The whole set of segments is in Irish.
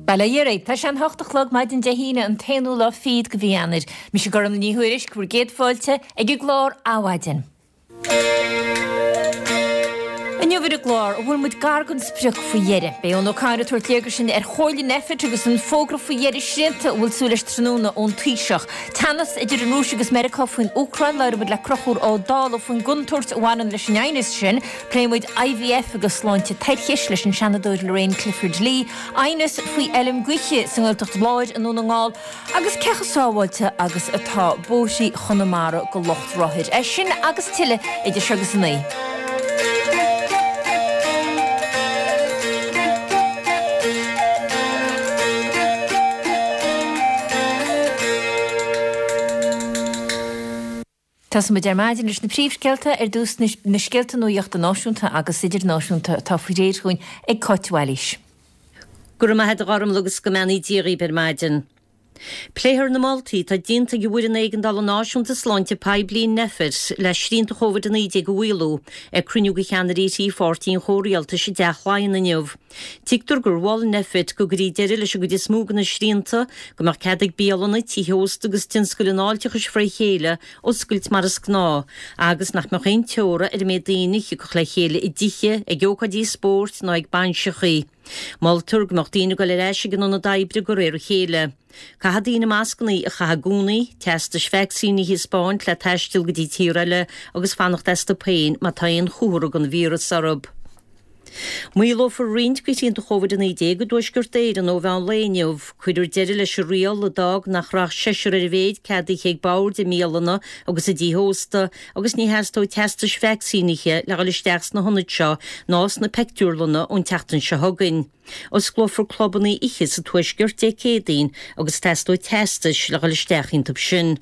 Bail ó Dhia oraibh. Tá sé an hocht a chlog maidin Dé hAoine an t-aonú lá fichead de mhí Eanáir. Mise Gormfhlaith Ní Thuairisg, bhur gcéad fáilte ag an gclár Adhmhaidin. Inniu ar an gclár, an bhfuil muid gar don sprioc faoi dheireadh? Beidh Eoin O'Connor ag tabhairt léargas dúinn ar chomhairle Nphet agus an fógra faoi dheireadh srianta a bhfuil súil leis tráthnóna ón Taoiseach. Teannas idir an Rúis agus Meiriceá faoin Úcráin, labhróidh muid le Conchúr Ó Dálaigh faoin gcontúirt a bhaineann leis an aighneas sin. Pléifidh muid IVF agus sláinte toirchis leis an Seanadóir Lorraine Clifford-Lee, aighneas faoi fheilm gaoithe sa nGaeltacht Láir i nDún na nGall agus cé chomh sábháilte agus atá bóithrí Chonamara do lucht rothair. É sin agus tuilleadh idir seo agus a 9. Tosóidh muid ar maidin leis na príomhscéalta, ar dtús na scéalta nuachta náisiúnta agus idirnáisiúnta atá faoi réir dhúinn ag Cáit Bhailís. Go raibh maith agat a Ghormfhlaith agus go mbeannaí Dia dhaoibh ar maidin. Pléifear na moltaí atá déanta ag an bhFoireann Éigeandála Náisiúnta Sláinte Poiblí, Nphet, le srianta Covid-19 a mhaolú ag cruinniú de cheannairí thrí pháirtí an chomhrialtais i dTeach Laighean inniu. Tuigtear gur mhol Nphet go gcuirfí deireadh leis an gcuid is mó de na srianta, go mbeadh cead ag bialanna, tithe ósta agus tionscail an fháilteachais fré chéile oscailt mar is gnáth, agus nach mbeadh aon teora ar an méid daoine a thiocfadh le chéile i dtithe, ag ócáidí spóirt ná ag bainseachaí. Moltar go mbeadh daoine ag dul ar ais ag an ionad oibre de réir a chéile. Caithfidh daoine mascanna a chaitheamh i gcónaí, teastais vacsaíní a thaispeáint le taisteal go dtí tír eile agus fanacht astu féin má tá aon chomhartha den víreas orthu. Maolófar roinnt de shrianta Covid-19 i dTuaisceart Éireann ó mheán lae inniu. Cuirfear deireadh leis an riail a d'fhág nach raibh ach seisear ar a mhéid ceadaithe ag boird i mbialanna agus i dtithe ósta agus ní theastóidh teastais vacsaínithe le dhul isteach sna hionaid seo ná sna peictiúrlanna ón tseachtain seo chugainn. Osclófar clubanna oíche sa Tuaisceart Dé Céadaoin agus teastóidh teastais le dhul isteach iontu sin.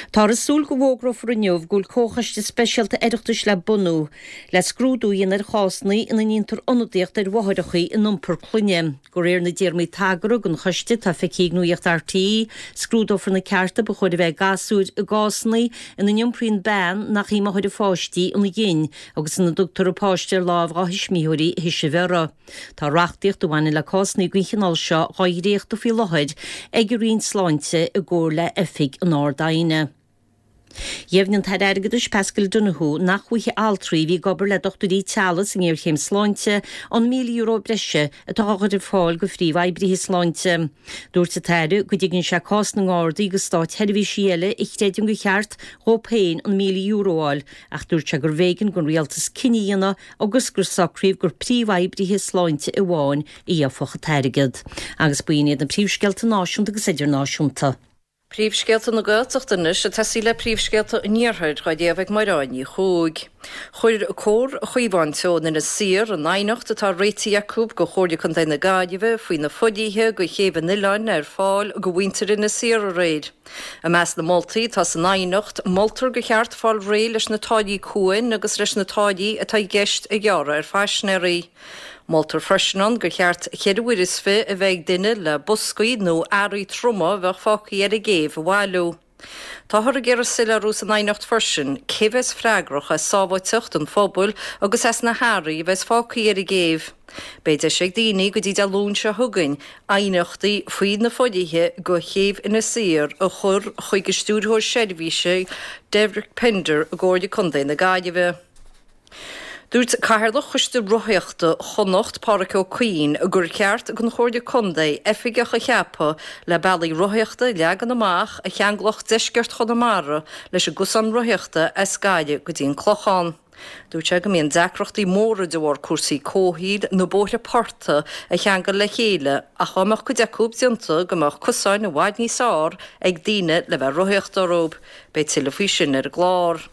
Táthar ag súil go bhfógrófar inniu go bhfuil comhchoiste speisialta Oireachtais le bunú le scrúdú a dhéanamh ar chásanna ina ndéantar ionadaíocht ar mháithreacha in iompar clainne. De réir na dtéarmaí tagartha don choiste atá feicthe ag Nuacht RTÉ, scrúdófar na cearta ba chóir a bheith ag gasúir i gcásanna ina n-iompraíonn bean nach í máthair a pháistí an ghin agus ina dtugtar an páiste ar láimh dhá thuismitheoirí a théis a bhreithe. Tá reachtaíocht a bhaineann le cásanna den chineál seo dhá dhréachtadh faoi láthair ag an Roinn Sláinte i gcomhar le Oifig an Ard-Aighne. Dheimhnigh an tAire Airgeadais Paschal Donohoe nach bhfaighidh altraí a bhí ag obair le dochtúirí teaghlaigh sa ngéarchéim sláinte an €1,000 breise atá á chur ar fáil do phríomhoibrithe sláinte. Dúirt an tAire go dtuigeann sé cás na nGardaí agus státsheirbhísigh eile a chreideann gur cheart dhóibh féin an €1,000 a fháil ach dúirt sé gurbh éigean don Rialtas cinneadh a dhéanamh agus gur socraíodh gur príomhoibrithe sláinte amháin a gheobhadh an t-airgead. Agus b'in iad na príomhscéalta náisiúnta agus idirnáisiúnta. Príomhscéalta na Gaeltachta anois ag tosaí le príomhscéalta an Iarthair dhá léamh ag Mairéad Ní Chuaig. Chuir Comhar Chaomhán Teo in Inis Oírr an aighneacht atá réitithe acu go Chomhairle Contae na Gaillimhe faoi na fodhlíthe go chéibh an oileáin ar fáil go mhuintir Inis Oírr aréir. I measc na moltaí atá san aighneacht, moltar gur cheart fáil réidh leis na táillí cuain agus leis na táillí atá i gceist a ghearradh ar phaisinéirí. Moltar freisin ann gur cheart cheithre uair is fi a bheith ag duine le boscaí nó earraí troma a bheadh fágtha ar an gcéibh a bhailiú. Táthar ag iarraidh soiléiriú san aighneacht freisin cé bheas freagrach as sábháilteacht an phobail agus as na hearraí a bheas fágtha ar an gcéibh. Beidh deis ag daoine go dtí Dé Luain seo chugainn aighneachtaí faoi na fodhlíthe go chéibh Inis Oírr a chur chuig an Stiúrthóir Seirbhíse Derek Pender i gComhairle Contae na Gaillimhe. Dúirt Cathaoirleach Choiste Rothaíochta Chonnacht, Pádhraic Ó Cuinn, gur cheart don Chomhairle Contae oifigeach a cheapadh le bealaí rothaíochta a leagan amach a cheanglódh deisceart Chonamara leis an gcosán rothaíochta as Gaillimh go dtí an Clochán. Dúirt sé go mbíonn deacrachtaí móra de bharr cúrsaí comhshaoil na bóithre portaigh a cheangal le chéile ach dá mbeadh cuid acu déanta go mbeadh cosáin i bhfad níos fearr ag daoine le bheith ag rothaíocht orthu. Beidh tuilleadh faoi sin ar an gclár.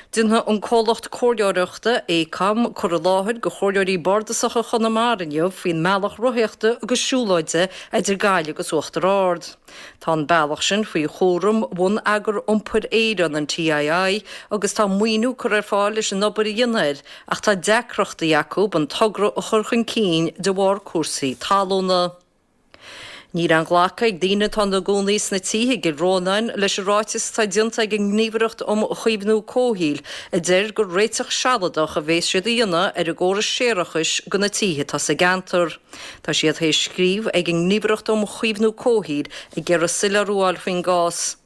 Déanfaidh an comhlacht comhairleoireachta, Aecom, cur i láthair go chomhairleoirí bardasacha Chonamara inniu faoin mbealach rothaíochta agus siúlóide idir Gaillimh agus Uachtar Ard. Tá an bealach sin faoi chúram Bhonneagar Iompair Éireann, an TII, agus tá maoiniú curtha ar fáil leis an obair a dhéanamh air ach tá deacrachtaí acu an togra a chur chun cinn de bharr cúrsaí talúna. Níl aon ghlacadh ag daoine atá ina gcónaí sna tithe i gCill Rónáin leis an ráiteas atá déanta ag an nGníomhaireacht um Chaomhnú Comhshaoil a deir gur réiteach sealadach a bhéas siad a dhéanamh ar an gcóras séarachais do na tithe atá sa gceantar. Tá siad théis scríobh ag an nGníomhaireacht um Chaomhnú Comhshaoil ag iarraidh soiléiriú a fháil faoin gcás.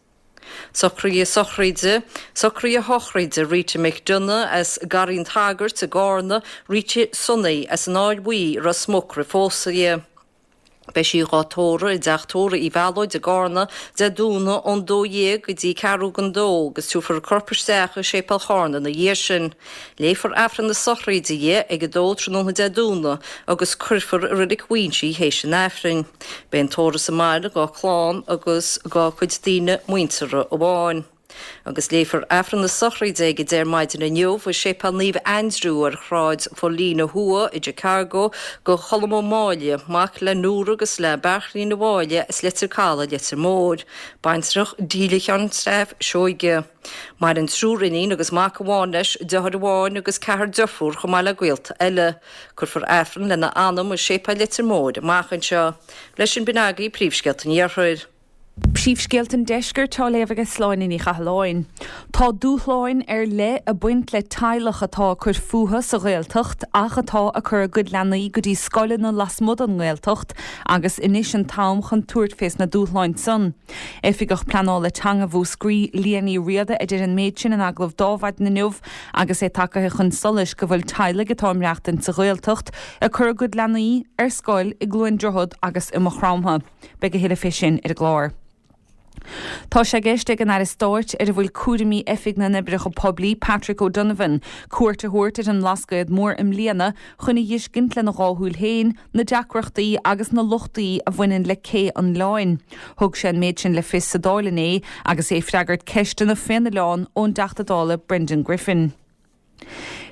Socruithe sochraide, Socruithe sochraide Rita McDonagh as Garraí an tSagairt i gCárna, Rita Sonaí as an Áill Bhuí i Ros Muc roimh phósadh di. Beidh sí dhá tórramh i dteach tórraimh Uí Mhealóid i gCárna Dé Domhnaigh ón 12 go dtí ceathrú don dó agus tabharfar a corp isteach i Séipéal Chárna ina dhiaidh sin. Léifear Aifreann na sochraide di ag 2 tráthnóna Dé Domhnaigh agus cuirfear i Reilig Mhaínse í théis an Aifrinn. Beidh an tórramh sa mbaile dhá clann agus dhá cuid daoine muinteartha amháin. Agus léifear Aifreann na sochraide ag 10 ar maidin inniu i Séipéal Naomh Aindriú ar Shráid Phaulina Thuaidh i gChicago do Cholm Ó Máille, mac le Nóra agus le Beairtlín Ó Máille as Leitir Calaidh, Leitir Móir. Baintreach Delia Sheáin Steph Seoige. Maireann triúr iníon agus mac amháin leis, deartháir amháin agus ceathrar deirfiúr chomh maith le gaolta eile. Cuirfear Aifreann lena anam i Séipéal Leitir Móir amach anseo. Leis sin b'in agaibh príomhscéalta an Iarthair. Príomhscéalta an Deiscirt á léamh ag Sláine Ní Chathalláin. Tá dúshláin ar leith ag baint le teaghlach atá ag cur fúthu sa Ghaeltacht ach atá ag cur a gcuid leanaí go dtí scoileanna lasmuigh den nGaeltacht agus anois an t-am chun tabhairt fés na dúshláin san. Oifigeach Pleanála Teanga Mhúscraí, Liadh Ní Riada a deir an méid sin in agallamh d'Adhmhaidin inniu agus é tagaithe chun solais go bhfuil teaghlaigh atá ag maireachtaint sa Ghaeltacht ag cur a gcuid leanaí ar scoil i gCluain Droichead agus i Maigh Chromtha. Beidh a thuilleadh fé sin ar an gclár. Tá sé i gceist ag an Aire Stáit ar a bhfuil cúraimí Oifig na nOibreacha Poiblí, Patrick O'Donovan, cuairt a thabhairt ar an mBlascaod Mór i mbliana chun a dh'fheiscint lena dhá shúil féin na deacrachtaí agus na lochtaí a bhaineann le Cé an Oileáin. Thug sé an méid sin le fios sa Dáil inné agus é ag freagairt ceisteanna fén oileán ón dTeachta Dála Brendan Griffin.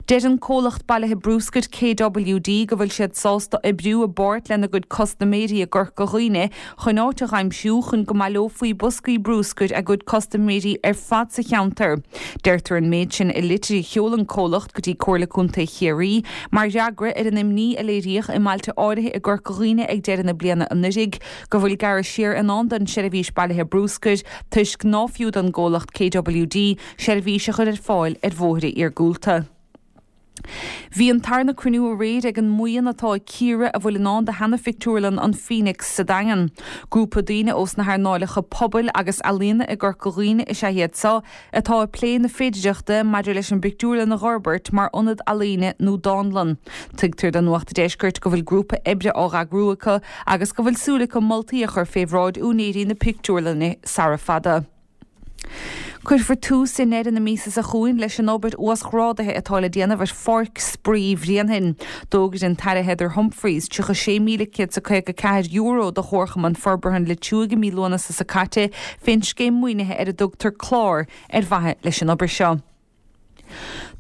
Deir an comhlacht bailithe brúscair KWD go bhfuil siad sásta oibriú i bpáirt lena gcuid custaiméirí i gCorca Dhuibhne chun áit a dh'aimsiú chun go mbaileofaí boscaí brúscair a gcuid custaiméirí ar fad sa cheantar. Deirtear an méid sin i litir a sheol an comhlacht go dtí Comhairle Contae Chiarraí mar fhreagra ar an imní a léiríodh i mbailte áirithe i gCorca Dhuibhne ag deireadh na bliana anuraidh go bhfuil gearradh siar i ndán don seirbhís bailithe brúscair toisc ná fiú don gcomhlacht KWD seirbhís a chur ar fáil ar bhóithre iargúlta. Bhí an tarna cruinniú aréir ag an mbuíon atá ag cíoradh a bhfuil i ndán do sheana-phictiúrlann an Phoenix sa Daingean. Grúpa daoine ós na hearnáileacha pobail agus ealaíona i gCorca Dhuibhne is ea iad seo atá ag plé na féidireachta maidir leis an bpictiúrlann a dh'fhorbairt mar ionad ealaíne nó dánlann. Tuigtear do Nuacht a' Deiscirt go bhfuil grúpa oibre á dh'eagrú acu agus go bhfuil súil acu moltaí a chur fé bhráid úinéirí na pictiúrlainne sara fada. Cuirfear tús i ndeireadh na míosa seo chugainn leis an obair uasghrádaithe atá le déanamh ar Pháirc Spraoi Bhréanainn. D'fhógair an tAire Heather Humphreys €36,154 do Chomharchumann Forbartha an Leitriúigh i mí Lúnasa seo caite fén scéim maoinithe ar a dtugtar Clár ar mhaithe leis an obair seo.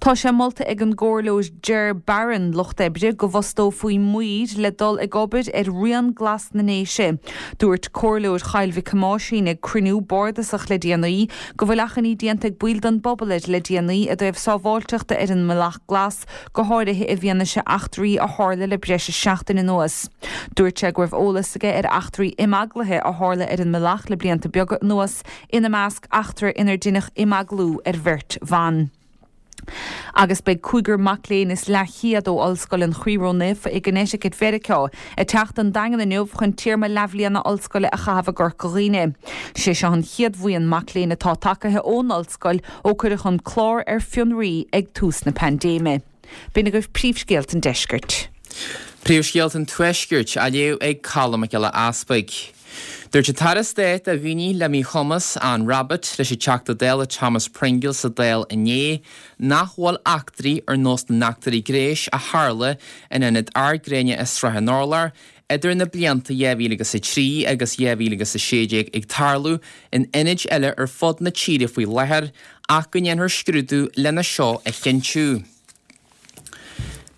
Tá sé molta ag an gComhairleoir Ger Barron, Lucht Oibre, go bhfostófaí maoir le dul ag obair ar Rian Glas na nDéise. Dúirt Comhairleoir Choill Mhic Thomáisín ag cruinniú bardasach le déanaí go bhfuil achainí déanta ag baill den bpobal air le déanaí i dtaobh sábháilteachta ar an mBealach Glas, go háirithe i bhfianaise eachtraí a tharla le breis is seachtain anuas. Dúirt sé go raibh eolas aige ar eachtraí imeaglaithe a tharla ar an mbealach le blianta beaga anuas, ina measc eachtra inar deineadh imeaglú ar bheirt bhan. Agus beidh cúigear mac léinn is leathchéad ó Ollscoil an Chroí Ró-Naofa i gConnecticut Mheiriceá ag teacht don Daingean inniu chun téarma leathbhliana ollscoile a chaitheamh i gCorca Dhuibhne. Sé seo an chéad bhuíon mac léinn atá tagaithe ón ollscoil ó cuireadh an clár ar fionraí ag tús na paindéime. B'in agaibh príomhscéalta an deiscirt. Príomhscéalta an Tuaiscirt á léamh ag Colm Mac Giolla Easpaig. Dúirt an tAire Stáit do Dhaoine le Míchumas, Anne Rabbitte, leis an Teachta Dála Thomas Pringle sa Dáil inné nach bhfuil eachtraí ar nós na n-eachtraí gnéis a tharla in Ionad Ard Gréine i Srath an Urláir idir na blianta 2003 agus 2016 ag tarlú in ionaid eile ar fud na tíre faoi láthair ach go ndéanfar scrúdú lena seo a chinntiú.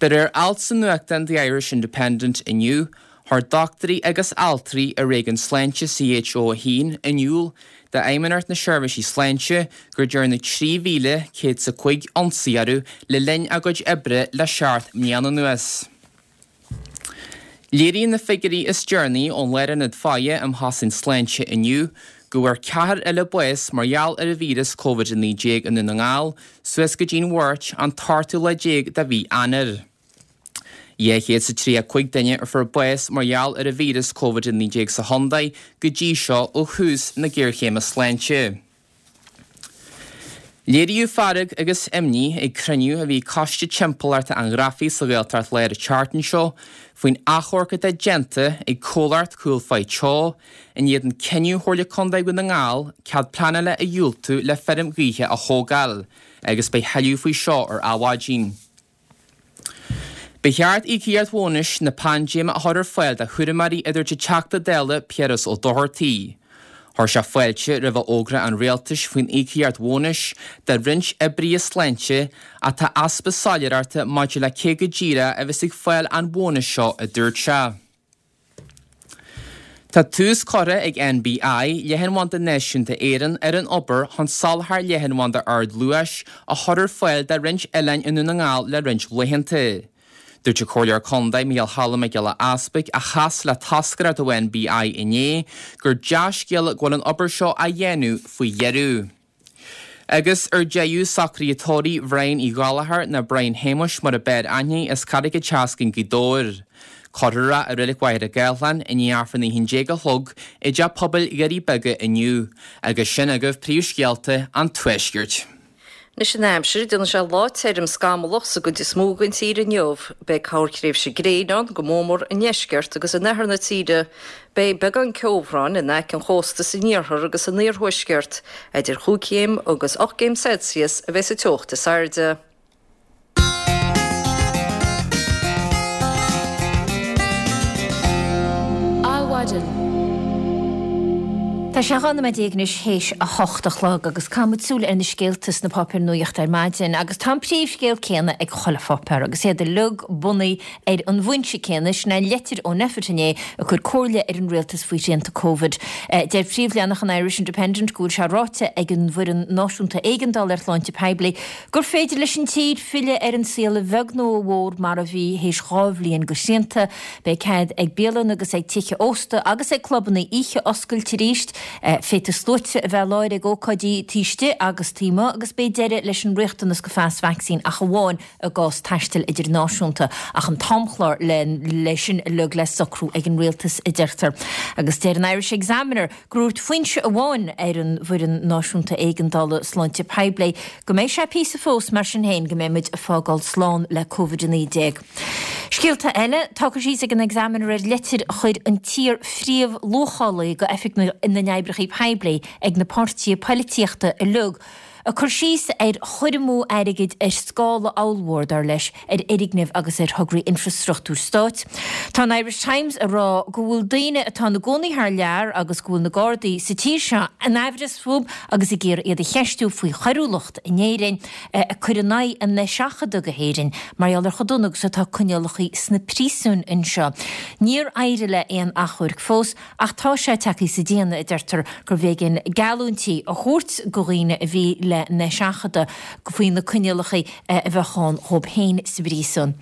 De réir alt sa nuachtán The Irish Independent inniu, chuir dochtúirí agus altraí i réigiún sláinte CHO1 in iúl d'Fheidhmeannacht na Seirbhísí Sláinte gur dearnadh 3,105 ionsaí orthu le linn a gcuid oibre le seacht mbliana anuas. Léiríonn na figiúirí is deireanaí ón Lárionad Faire um Chosaint Sláinte inniu go bhfuair ceathrar eile bás mar gheall ar an víreas Covid-19 i nDún na nGall suas go dtí'n Mháirt an t-ochtú lá déag de mhí Eanáir. 235 duine a fuair bás mar gheall ar an víreas Covid-19 sa chontae go dtí seo ó thús na géarchéime sláinte. Léiríodh fearg agus imní ag cruinniú a bhí ag Coiste Timpeallachta an Ghrafaidh sa Ghaeltacht Láir an tseachtain seo faoin achomharc atá déanta ag comhlacht Cúil Phaigh Teo in éadan cinneadh Chomhairle Contae Dhún na nGall cead pleanála a dhiúltú le feirm ghaoithe a thógáil agus beidh thuilleadh faoi seo ar Adhmhaidin. Ba cheart íocaíocht bhónais na paindéime a chur ar fáil do chúramóirí a dúirt an Teachta Dála Piaras Ó Dochartaigh. Chuir sé fáilte roimh fhógra an Rialtais faoin íocaíocht bhónais do roinnt oibrithe sláinte ach tá easpa soiléireachta maidir le cé go díreach a bheas ag fáil an bhónais seo a dúirt sé. Tá tús curtha ag NBI, Leathanbhanda Náisiúnta Éireann, ar an obair chun soláthar leathanbhanda ardluais a chur ar fáil do roinnt oileáin i nDún na nGall le roinnt laethanta. Dúirt an Comhairleoir Contae Micheál Choilm Mac Giolla Easpaig, a chas le toscaireacht ó NBI inné, gur dea-scéala go bhfuil an obair seo á dhéanamh faoi dheireadh. Agus ar deireadh, socruithe tórraimh Bhrian Uí Ghallchóir, nó Brian Shéamuis mar a b'fhearr aithne, as Carraig an tSeascainn, Gaoth Dobhair. Cuirfear é i Reilig Mhachaire Gathlán i ndiaidh Aifreann 11 a chlog i dTeach Pobail Dhoirí Beaga inniu. Agus sin agaibh príomhscéalta an Tuaiscirt. Anois an aimsir, déanfaidh sé lá tirim scamallach sa gcuid is mó den tír inniu. Beidh corrthréimhse gréine ann, go mórmór i ndeisceart agus in oirthear na tíre. Beidh beagán ceobhráin in aice an chósta san iarthar agus san iarthuaisceart. Idir chúig chéim agus 8 gcéim Celsius a bheidh sa teocht is airde. Adhmhaidin. Tá sé 12 nóiméad anois théis a hocht a chlog agus caithfidh muid súil ar na scéalta sna páipéir nuachta ar maidin agus tá an príomhscéal céanna ag chuile pháipéar agus iad uilig bunaithe ar an bhfoinse céanna, sin é an leitir ó Nphet inné ag cur comhairle ar an rialtas faoi shrianta Covid. Deir príomhleathanach an Irish Independent go bhfuil sé ráite ag an bhFoireann Náisiúnta Éigeandála ar Shláinte Poiblí Gur féidir leis an tír filleadh ar an saol a bheag nó a mhór mar a bhí théis 2 bhliain de shrianta. Beidh cead ag bialanna agus ag tithe ósta agus ag clubanna oíche oscailt arís. Féadfaidh sluaite a bheith i láthair ag ócáidí taobh istigh agus taobh amuigh agus beidh deireadh leis an riachtanas go phas vacsaín ach amháin i gcás taistil idirnáisiúnta ach an t-amchlár le sin uilig le socrú ag an rialtas a deirtear. Agus deir an Irish Examiner gur dhúirt foinse amháin ar an bhFoireann Náisiúnta Éigeandála Sláinte Poiblí go mbeidh sé píosa fós mar sin féin go mbeidh muid ag fágáil slán le Covid-19. Scéalta eile, tá cur síos ag an Examiner ar leitir a chuir an t-iar-phríomh-luachálaí go Oifig na nOibreacha Poiblí ag na páirtithe poilitíochta uilig, Ag cur síos ar chur amú airgid ar scála ollmhór, dar leis, ar fhoirgnimh agus ar thograí infreastruchtúir stáit. Tá an Irish Times ag rá go bhfuil daoine atá ina gcónaí thar lear agus go bhfuil na Gardaí sa tír seo in aimhreas fúthu agus ag iarraidh iad a cheistiú faoi choiriúlacht in Éirinn ag cur in aghaidh a n-eiseachadadh go hÉirinn mar gheall ar chomh dona agus atá coinníollacha sna príosúin anseo. Níor éirigh le aon achomhairc fós. Ach tá sé tagtha sa déanamh, a deirtear, gurbh éigean geallúintí a thabhairt go dhaoine a bhí le n-eiseachadadh faoi na coinníollacha a bheadh ann dhóibh féin sa bpríosún.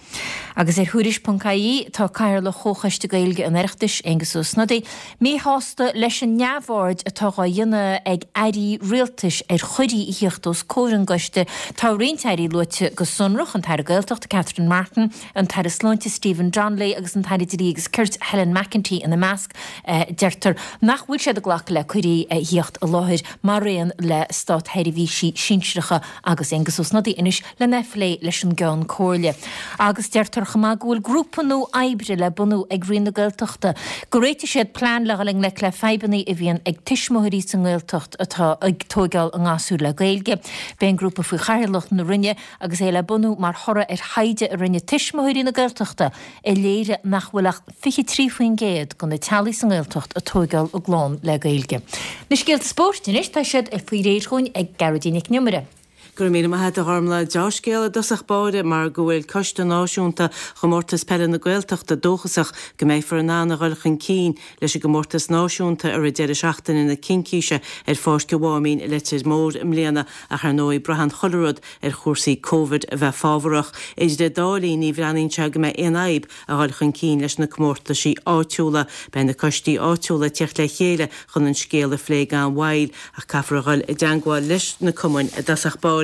Agus ar Thuairisc ponc ie tá Cathaoirleach Chomhchoiste Gaeilge an Oireachtais, Aengus Ó Snodaigh, míshásta leis an neamhaird atá dhá dhéanamh ag airí rialtais ar chuirí a thíocht os comhair an gcoiste. Tá roinnt airí luaite go sonrach, an tAire Gaeltachta Catherine Martin, an tAire Sláinte Stephen Donnelly agus an tAire Dlí agus Cirt Helen McEntee ina measc. Deirtear nach bhfuil siad ag glacadh le cuirí a thíocht i láthair maraon le státsheirbhísigh sinsearacha agus Aengus Ó Snodaigh anois lena phlé leis an gCeann Comhairle. Agus deirtear chomh maith go bhfuil grúpa nua oibre le bunú ag Roinn na Gaeltachta go réiteoidh siad plean le dhul i ngleic le fadhbanna a bhíonn ag tuismitheoirí sa nGaeltacht atá ag tóigeáil a ngasúir le Gaeilge. Beidh an grúpa faoi chathaoirleacht na Roinne agus é le bunú mar thoradh ar thaighde a rinne Tuismitheoirí na Gaeltachta a léirigh nach bhfuil ach 23% de na teaghlaigh sa nGaeltacht ag tóigeáil a gclann le Gaeilge. Na scéalta spóirt anois, tá siad faoi réir chugainn ag Gearóidín Nic an Iomaire. Go raibh míle maith agat a Ghormlaith. Deá-scéal i dtosach báire mar go bhfuil Coiste Náisiúnta Chomórtas Peile na Gaeltachta dóchasach go mbeifear in ann a dhul chun cinn leis an gcomórtas náisiúnta i rith deireadh seachtaine na Cincíse ar Pháirc an Mháimín i Leitir Móir i mbliana ach ar ndóigh braitheann chuile rud ar chúrsaí Covid a bheith fábharach. Idir an dá linn ní bhreathnaíonn sé go mbeidh aon fhadhb a dhul chun cinn leis na comórtaisí áitiúla. Beidh na coistí áitiúla ag tíocht le chéile chun an scéal a phlé gan mhoill ach caithfear a dhul i dteangmháil leis na cumainn i dtosach báire.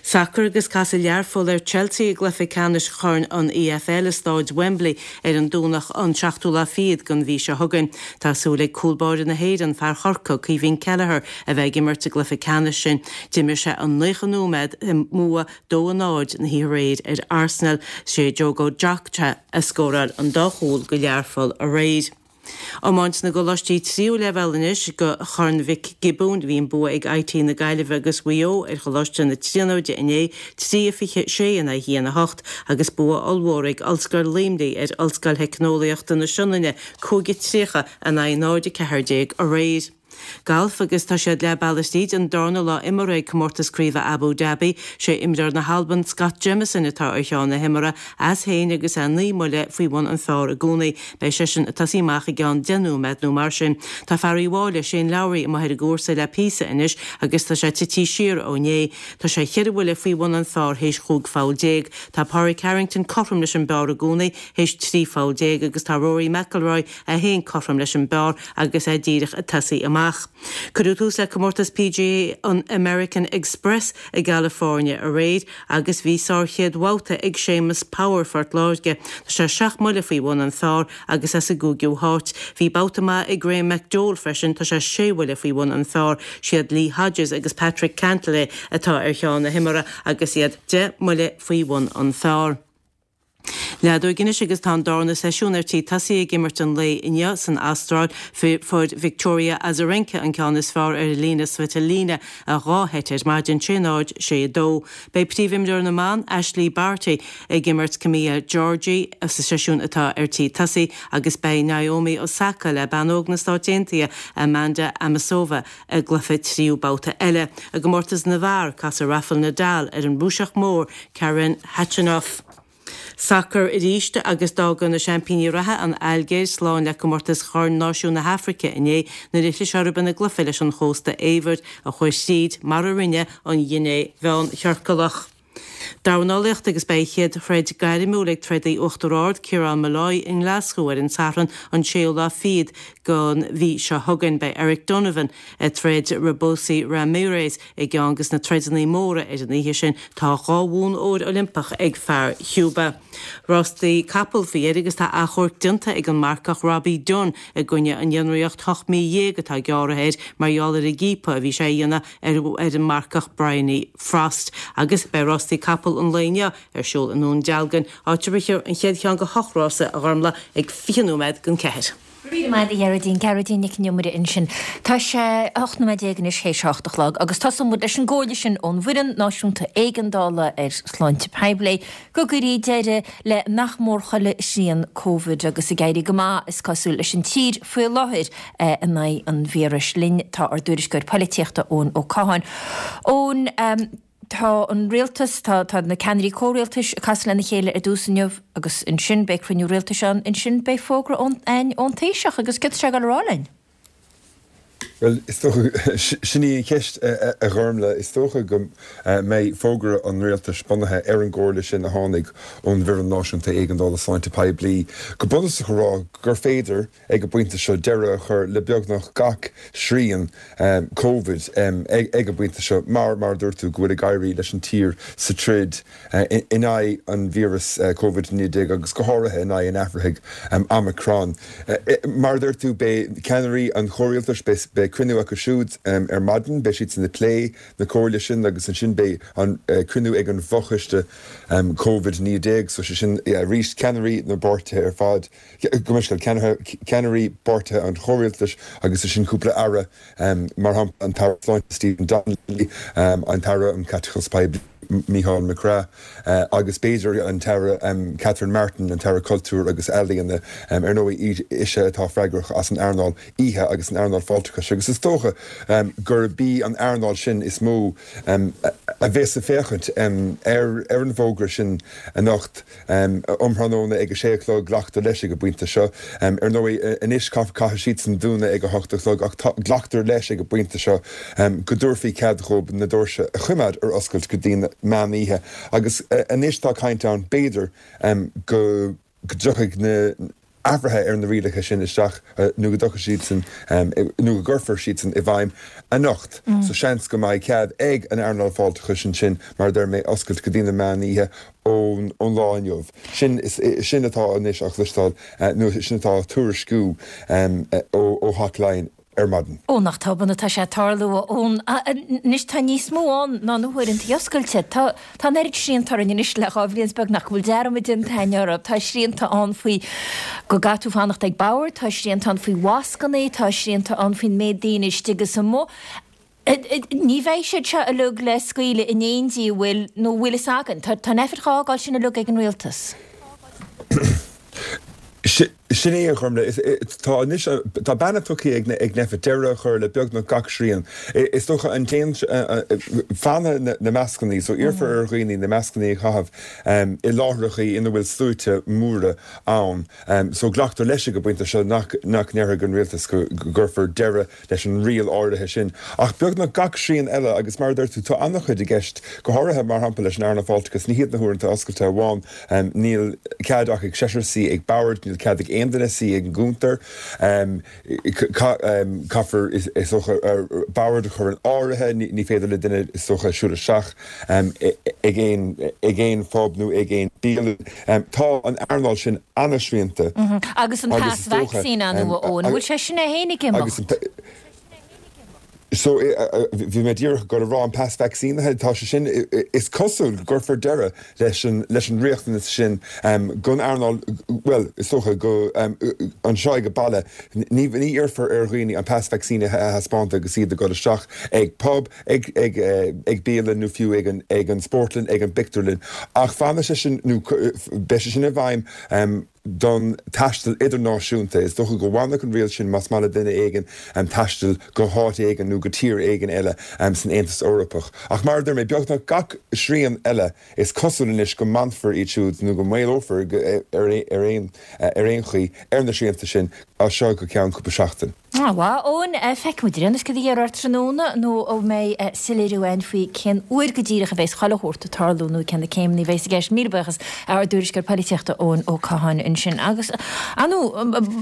Sacar agus casfaidh Learpholl ar Chelsea i gcluiche ceannais Chorn an EFL i Stáid Wembley ar an Domhnach an seachtú lá fichead den mhí seo chugainn. Tá súil ag cúl báire na hÉireann, fear Chorcaí, Caoimhín Kelleher, a bheith ag imirt sa gcluiche ceannais sin. D'imir sé an 90 nóiméad i mbua 2-0 na hoíche aréir ar Arsenal. Sé Diogo Jota a scóráil an dá chúl do Learpholl aréir. Iomáint na gcoláistí tríú leibhéal anois do Chorn Mhic Giobúin. Bhí an bua ag IT na Gaillimhe agus Mhaigh Eo ar Choláiste na Tríonóide inné, 3-26 in aghaidh 1-8, agus bua ollmhór ag Ollscoil Luimnigh ar Ollscoil Theicneolaíochta na Sionainne, 5-30 in aghaidh 0-14 aréir. Galf agus tá siad leath bealaigh tríd an darna lá imeartha ag Comórtas Craoibhe Abu Dhabi. Sé imreoir na hAlban Scott Jamieson atá ar cheann na himeartha as féin agus é 9 mbuille faoi bhun an phar i gcónaí. Beidh seisean ag tosaí amach i gceann 10 nóiméad nó mar sin. Tá fear Uíbh Fhailí, Shane Lowry, amuigh ar an gcúrsa le píosa anois agus tá sé tití siar ó inné. Tá sé cheithre bhuille faoi bhun an phar théis chúig pholl déag. Tá Pádraig Harrington cothrom leis an bpar i gcónaí théis 13 pholl agus tá Rory McIlroy é féin cothrom leis an bpar agus é díreach ag tosaí amach. Cuireadh tús le comórtas PGA an American Express i gCalifornia aréir agus bhí sár-chéad bhabhta ag Séamus Power, Phort Láirge. Tá sé seacht mbuille faoi bhun an phar agus é sa gcúigiú háit. Bhí babhta maith ag Graham McDowell freisin, tá sé sé bhuille faoi bhun an phar. Siad Lee Hodges agus Patrick Cantlay atá ar cheann na himeartha agus iad 10 mbuille faoi bhun an phar. Leadóg anois agus tá an darna seisiún ar tí tosaí ag imirt an lae inniu san Astráil. Fuair Victoria Azarenka an ceann is fearr ar Elina Svitolina i dhá sheit ar maidin, 6 0, 6 2. Beidh príomhimreoir na mban, Ashleigh Barty, ag imirt Camila Giorgi sa seisiún atá ar tí tosaí agus beidh Naomi Osaka le bean óg na Stáit Aontaithe, Amanda Anisimova, i gcluiche tríú babhta eile. I gcomórtas na bhfear, casfaidh Rafael Nadal ar an Rúiseach mór Karen Khachanov. Sacar arís agus d'fhága na seaimpíní reatha, an Ailgéir, slán le comórtas Chorn Náisiún na hAfraice inné nuair a chlis orthu ina gcluiche leis an Chósta Eabhair a chuaigh thríd, mar a rinne an Ghiné Mheánchiorcalach. Dornálaíocht agus beidh a chéad throid gairmiúil ag trodaí Uachtar Ard, Ciarán Molloy, i nGlaschú ar an Satharn an séú lá fichead den mhí seo chugainn. Beidh Eric Donovan ag troid Robeisy Ramirez i gceann des na troideanna móra ar an oíche sin. Tá dhá bhonn óir Oilimpeach ag fear Chúba. Rástaí capall faoi dheireadh agus tá achomharc déanta ag an marcach Robbie Dunne i gcoinne an fhionraíocht 18 mí atá gearrtha air mar gheall ar an gciapadh a bhí sé a dhéanamh ar an marcach Bryony Frost agus beidh rástaí capall an lae inniu ar siúl i nDún Dealgan, áit a rithfear an chéad cheann de hocht rása, a Ghormlaith, ag 20 nóiméad don cheathair. Go raibh míle maith agat a Ghearóidín, Gearóidín Nic an Iomaire ansin. Tá sé 18 nóiméad anois théis a hocht a chlog agus tosóidh muid leis an gcomhairle sin ón bhFoireann Náisiúnta Éigeandála ar Shláinte Poiblí go gcuirfí deireadh le nach mór chuile shrian Covid agus ag éirí go maith, is cosúil, leis an tír faoi láthair in aghaidh an víris. Linn tá ár dtuairisceoir poilitíochta Eoin Ó Catháin. Eoin, tá an rialtas, tá tá na ceannairí comhrialtais ag casadh lena chéile ar dtús inniu agus ansin beidh cruinniú rialtais ann, ansin beidh fógra ón ón Taoiseach agus céard tá sé ag dul a rá linn? Bhuel, is dócha, sin í an cheist, a Ghormlaith. Is dócha go mbeidh fógra an rialtais bunaithe ar an gcomhairle sin a tháinig ón bhFoireann Náisiúnta Éigeandála Sláinte Poiblí, go bunúsach a rá gur féidir, ag an bpointe seo, deireadh a chur le beagnach gach srian Covid ag an bpointe seo mar, mar a dúirt tú, go bhfuil ag éirí leis an tír sa troid in aghaidh an víreas Covid-19 agus go háirithe in aghaidh an athraithigh Omicron. Mar a dúirt tú, beidh ceannairí an chomhrialtais, beidh cruinniú acu siúd ar maidin, beidh siadsan ag plé na comhairle sin agus ansin beidh an cruinniú ag an bhfochoiste Covid-19, so sé sin arís ceannairí na bpáirtithe ar fad, gabh mo leithscéal, ceannairí bpáirtithe an chomhrialtais agus ansin cúpla aire, mar shampla an tAire Sláinte Stephen Donnelly, an tAire um Chaiteachas Poiblí. Mícheál McGrath agus b'fhéidir an tAire Catherine Martin, an tAire Cultúir agus Ealaíona. Ar ndóigh, ise atá freagrach as an earnáil oíche agus an earnáil fáilteachais agus is dócha gurb í an earnáil sin is mó a bheas ag féachaint ar an bhfógra sin anocht. Um thráthnóna ag a sé a chlog, glactar leis ag an bpointe seo. Ar ndóigh, anois caithfidh siadsan dúnadh ag a hocht a chlog ach glactar leis ag an bpointe seo go dtabharfaí cead dhóibh na doirse a choimeád ar oscailt go dtí an meán oíche agus anois tá caint ann b'fhéidir go dtiocfaidh na athruithe ar na rialacha sin isteach nó go dtiocfaidh siadsan nó go gcuirfear siadsan i bhfeidhm anocht. So seans go mbeidh cead ag an earnáil fáilteachais ansin, mar a deir mé, oscailt go dtí na meán oíche ón lá inniu. Sin, sin atá anois á chloisteáil nó sin atá á tuairisciú ó Theach Laighean. ar maidin. Ó, nach tobann atá sé ag tarlú, a Eoin. Anois tá níos mó ann ná na huaireanta oscailte. Tá tá an oiread srianta orainn anois le 2 bhliain is beagnach go bhfuil dearmad déanta againn orthu. Tá srianta ann faoi go gcaithfidh tú fanacht ag bord, tá srianta ann faoi mhascanna, tá srianta ann faoin méid daoine istigh is amuigh. Ní bheidh siad seo uilig le scaoileadh in éindí, an bhfuil, nó an bhfuil fhios againn? Tá Nphet dhá fhágáil sin uilig ag an rialtas. Sin é, a Ghormfhlaith. Tá anois, tá beannacht tugtha ag ag Nphet deireadh a chur le beagnach gach srian. Is dócha an t-aon, fanfaidh na mascannaí, so iarrfar ar dhaoine na mascannaí a chaitheamh i láithreachaí ina bhfuil sluaite móra ann. So glactar leis ag an bpointe seo nach nach ndéarfaidh an rialtas go gcuirfear deireadh leis an riail áirithe sin. Ach beagnach gach srian eile, agus mar a deir tú, tá an-chuid i gceist, go háirithe, mar shampla, leis an earnáil fáilteachais, ní hiad na huaireanta oscailte amháin, níl cead ach ag seisear suí ag bord, níl cead ag aon duine suí ag an gcuntar, caithfear, is dócha, bord a chur in áirithe, ní féidir le duine, is dócha, siúl isteach ag aon, ag aon phub nó ag aon bialann. Tá an earnáil sin an-srianta. Agus an pas vacsaíne a Eoin, an bhfuil sé sin é féin ag imeacht? So, bhí mé díreach ag dul a rá, an pas vacsaínithe, tá sé sin, is cosúil go gcuirfear deireadh leis an, leis an riachtanas sin don earnáil, bhuel, is dócha go, anseo ag baile, ní, ní iarrfar ar dhaoine an pas vacsaínithe a thaispeáint agus iad ag dul isteach ag pub, ag, ag, ag bialann nó fiú ag an, ag an spórtlann, ag an bpictiúrlann. Ach fanfaidh sé sin, nó beidh sé sin i bhfeidhm don taisteal idirnáisiúnta. Is dócha go bhfanfaidh an riail sin más maith le duine éigin taisteal go háit éigin nó go tír éigin eile san Aontas Eorpach. Ach mar a deir mé, beagnach gach srian eile, is cosúil anois go mbainfear iad siúd nó go maolófar ar aon ar aon chaoi ar na srianta sin as seo go ceann cúpla seachtain. Á, a Eoin, feicfidh muid ar aon nós céard a déarfar tráthnóna nó an mbeidh soiléiriú ann faoi cén uair go díreach a bheas chuile shórt ag tarlú nó cé na céimeanna a bheas i gceist. Míle buíochas ár dtuairisceoir polaitíochta Eoin Ó Catháin ansin. Agus, ar ndóigh,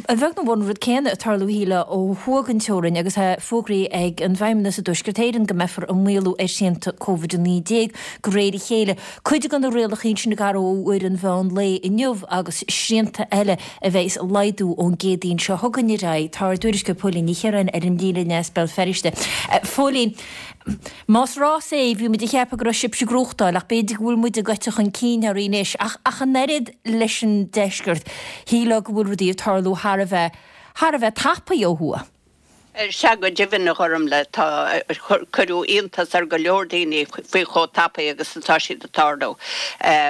a bheag nó a mhór an rud céanna ag tarlú shílfeá ó thuaidh den teorainn agus é fógraithe ag an bhFeidhmeannas i dTuaisceart Éireann go mbeifear ag maolú ar shrianta Covid-19 de réir a chéile. Cuid de na rialacha sin ag athrú ó uair an mheán lae inniu agus srianta eile a bheas ag laghdú ón gCéadaoin seo chugainn ar aghaidh. Tá ár dtuairisceoir Póilín Ní Chiaráin ar an líne as Béal Feirste. Phóilín, más rás é, bhí muid ag ceapadh go raibh sibhse ag gnóthachtáil ach b'fhéidir go bhfuil muid ag eiteadh chun cinn oraibh anois. Ach ach an oiread leis an deisceart, shílfeá go bhfuil rudaí ag tarlú thar a bheith, thar a bheith tapaidh ó thuaidh. Sea, go deimhin, a Ghormfhlaith, tá, cuireadh iontas ar go leor daoine faoi chomh tapaidh agus atá siad ag tarlú,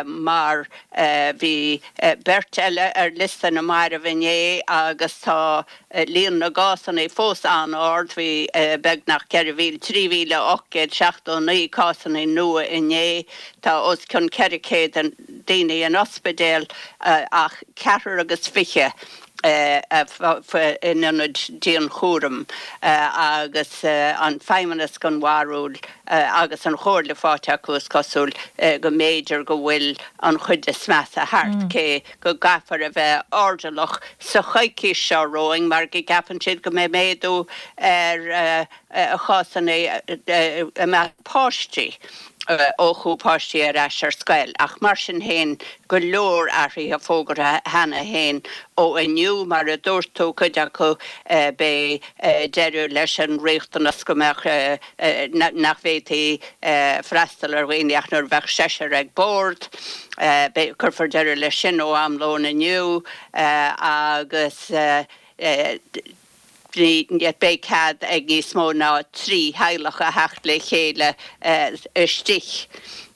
mar bhí beirt eile ar liosta na marbh inné agus tá líon na gcásanna fós an-ard, bhí beagnach 4,000, 3,879 cásanna nua inné, tá os cionn 400 daoine in ospidéal ach ceathrar agus fiche in ionaid dianchúraim agus an Feidhmeannas den bharúil agus an chomhairle faighte acu, is cosúil, go mb'fhéidir go bhfuil an chuid is measa thart, cé go gcaithfear a bheith airdeallach sa choicís seo romhainn mar go gceapann siad go mbeidh méadú ar chásanna i measc páistí ó chuaigh páistí ar ais ar scoil ach mar sin féin go leor athruithe fógartha cheana féin ó inniu. Mar a dúirt tú, cuid acu beidh deireadh leis an riachtanas go mbeadh, nach bhféadfaí freastal ar dhaoine ach nuair a bheadh seisear ag bord. Beidh, cuirfear deireadh leis sin ó am lóin inniu agus. Beidh cead ag níos mó ná 3 theaghlach a theacht le chéile istigh.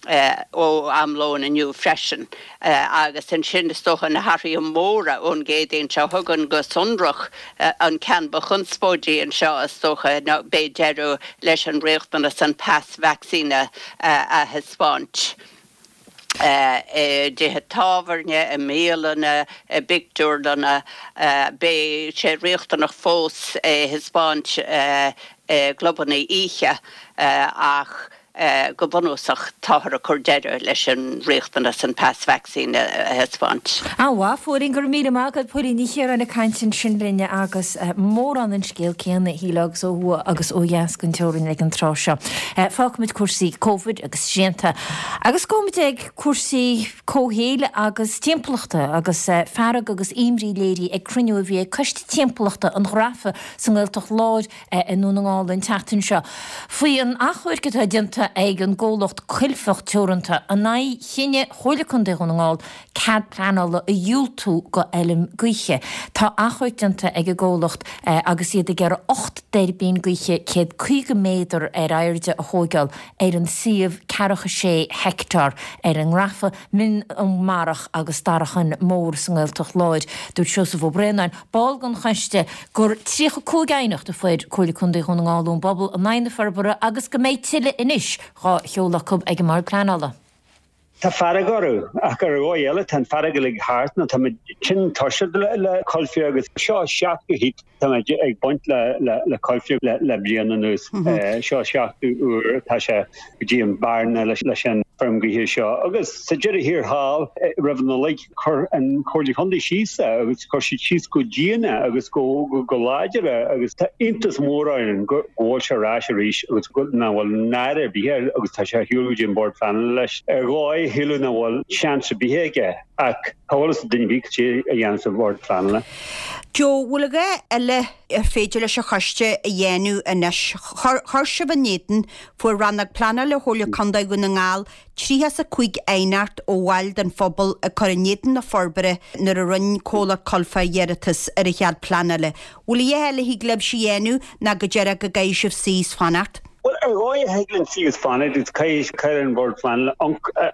Ó am lóin inniu freisin. Agus ansin is dócha na hathruithe móra ón gCéadaoin seo chugainn go sonrach, an ceann ba chonspóidí anseo is dócha ná beidh deireadh leis an riachtanas an pas vacsaíne a thaispeáint i dtithe tábhairne, i mbialanna, i bpictiúrlanna. Beidh sé riachtanach fós é a thaispeáint i gclubanna oíche ach Go bunúsach, táthar ag cur deireadh leis an riachtanas an pas vacsaíne a thaispeáint. An-mhaith, a Phóilín, go raibh míle maith agat. Póilín Ní Chiaráin ag caint ansin linn agus mórán den scéal céanna, shílfeá, agus ó thuaidh agus ó dheas den teorainn ag an tráth seo. Fágfaimid cúrsaí Covid agus srianta agus gabhfaimid ag cúrsaí comhshaoil agus timpeallachta agus fearg agus imní léirithe ag cruinniú a bhí ag Coiste Timpeallachta an Ghrafa sa nGaeltacht Láir i nDún na nGall an tseachtain seo faoi an achomharc atá déanta ag an gcomhlacht Coilfeach Teoranta in aghaidh chinneadh Chomhairle Contae Dhún na nGall cead pleanála a dhiúltú go fheilm gaoithe. Tá achomharc déanta ag an gcomhlacht agus iad ag iarraidh 8 dtuirbín gaoithe 150 méadar ar airde a thóigeáil ar an suíomh ceathracha sé heicteár ar an nGrafa, Mín na mBarrach agus Darachán Mór sa nGaeltacht Láir. Dúirt Seosamh Ó Braonáin, ball den choiste, gur 35 aighneacht a fuair Comhairle Contae Dhún na nGall ón bpobal in aghaidh na forbartha agus go mbeidh tuilleadh anois dhá sheoladh acu ag an mBord Pleanála. Tá fearg orthu, ach ar dhóigh eile tá an fearg uilig thart nó táimid tinn tuirseach le Coilféir agus seo seachtú hit táimid ag baint le Coilféir le bliain anuas. Seo seachtú uair atá sé go dtí an bearna leis an feirm gaoithe seo agus sa deireadh thiar thall roimh an Nollaig Chuir an Chomhairle Chontae síos é agus chuir siad síos go dian é agus go láidir é agus tá iontas mór orainn go bhfuil sé ar ais arís agus nach bhfuil náire ar bith air agus tá sé ar shiúl go dtí an Bord Pleanála leis. Ar dhóigh shílfeá nach bhfuil seans ar bith aige ach cá bhfuil fhios ag duine ar bith cad é a dhéanfas an Bord Pleanála. Joe, bhfuil a dhath eile ar féidir leis an choiste a dhéanamh anois? Chuir sibh in éadan, fuair Rannóg Pleanála Chomhairle Contae Dhún na nGall 35 aighneacht ó bhaill den phobal ag cur in éadan na forbartha nuair a rinne comhlacht Coilfeach iarratas ar an chead pleanála. Bhfuil a dhath eile a thig libhse a dhéanamh ná go díreach go gcaithfidh sibh suí is fanacht? Bhuel, ar dhóigh a thig linn suí is fanacht agus caithfidh an Bord Pleanála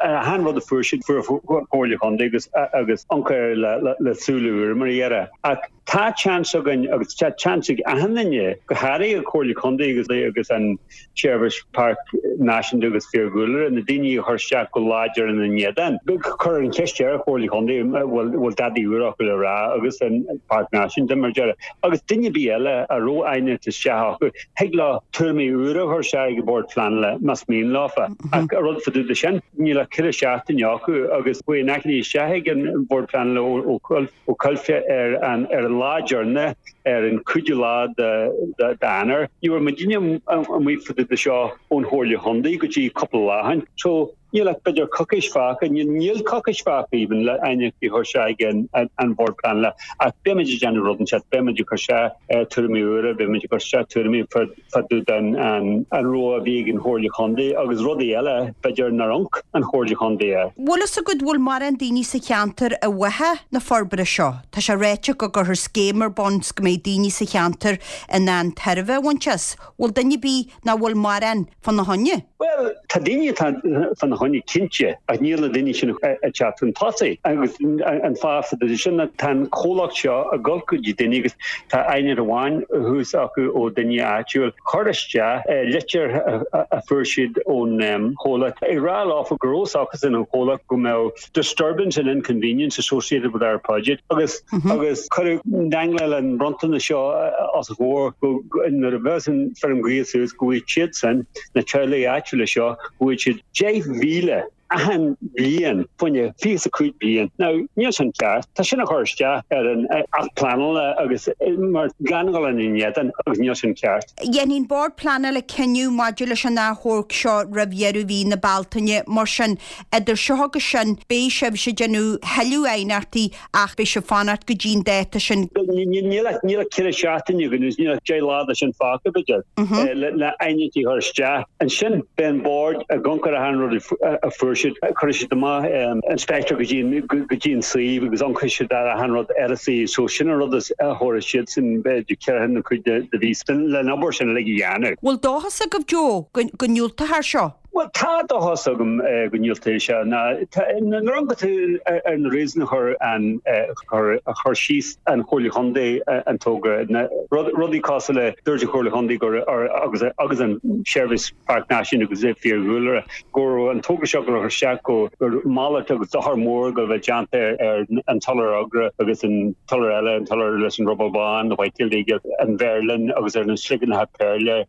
achan rud a fuair siad, fuair an Chomhairle Chontae agus agus amharc air le súile úra mar a déarfá. Ach tá seans againn agus tá seans ag achan duine, go háirithe an Chomhairle Chontae agus agus an Seirbhís Páirc Náisiúnta agus Fiadhúlra, na daoine a chuir isteach go láidir ina n-éadan. Cuir an cheist ar an Chomhairle Chontae an bhfuil dadaí úr acu le rá agus an Páirc Náisiúnta mar a déarfá. Agus duine ar bith eile a raibh aighneacht isteach acu, thig leo tuairimí úra a chur isteach ag an Bord Pleanála más mian leofa. Ach an rud fá dtaobh de sin, níl ach ceithre seachtaine acu agus chuaigh an achainí isteach ag an Bhord Pleanála ó ó Coilféir ar an ar an lá deireanach ar an cúigiú lá d'Eanáir. Ní raibh muidinne amuigh fá dtaobh de seo ón Chomhairle Chontae go dtí cúpla lá ó shin. So níl ach b'fhéidir coicís fágtha, níl coicís fágtha even le aighneachtaí a chur isteach ag an an Bhord Pleanála ach beimid ag déanamh rud inteacht, beimid ag cur isteach tuairimí úra, beimid ag cur isteach tuairimí fá dtaobh den an rogha a bhí ag an Chomhairle Chontae agus rudaí eile, b'fhéidir, nár amharc an Chomhairle Chontae air. Bhfuil fhios agat bhfuil mórán daoine sa cheantar i bhfáth na forbartha seo? Tá sé ráite go gcuirfear scéim ar bun 's go mbeidh daoine sa cheantar in ann tairbhe a bhaint as. Bhfuil duine ar bith nó bhfuil mórán fána choinne? Bhuel, tá daoine atá fána choinne cinnte, ach níl na daoine sin ag teacht chun tosaigh. Agus an fáth fá dtaobh de sin ná tá an comhlacht seo ag dul go dtí daoine agus tá aighneacht amháin thuas acu ó duine áitiúil. Chuir isteach litir a fuair siad ón chomhlacht ag rá leofa go raibh acusan an chomhlacht go mbeadh disturbance and inconvenience associated with our project agus agus cuireadh dangláil an bronntanas seo os a gcomhair go nuair a bheas an feirm gaoithe suas go bhfaighidh siadsan, na teaghlaigh áitiúla seo, go bhfaighidh siad 10,000 achan bhliain fá choinne 25 bliain. Now, níl sin ceart. Tá sin ag cur isteach ar an Acht Pleanála agus mar gan dhul ina n-éadan agus níl sin ceart. Dhéanfaidh an Bord Pleanála cinneadh maidir leis an achomharc seo roimh dheireadh mhí na Bealtaine. Mar sin, Idir seo agus sin, beidh sibhse ag déanamh thuilleadh aighneachtaí ach beidh sibh fanacht go dtí an dáta sin. Níl ach ceithre seachtaine againn agus níl ach 10 lá de sin fágtha, b'fhéidir, le aighneachtaí a chur isteach. Ansin beidh an Bord ag amharc ar achan rud a fuair siad, cuirfidh siad amach inspector go dtí an suíomh agus amharcfaidh siad ar achan rud ar an suíomh. So sin an rud a thabharfaidh siadsan, b'fhéidir, ceithre nó cúig de mhí le an obair sin uilig a dhéanamh. Bhfuil dóchas agaibh, Joe, go ndiúltófar seo? Bhuel, tá dóchas agam go ndiúltóidh sé. Nuair a amharcann tú ar na réasúin a chuir an a chuir síos an Chomhairle Chontae an togra, rudaí cosúil le dúirt an Chomhairle Chontae gur agus agus an Seirbhís Páirc Náisiúnta agus Fiadhúlra go raibh an togra seo ag dul isteach go gur malairt agus dochar mór go bheith déanta ar an t-iolar agra agus an t-iolar eile, an t-iolar leis an ruball bán, the white-tailed eagle, an mheirlin agus ar na sliogéanacha péarla,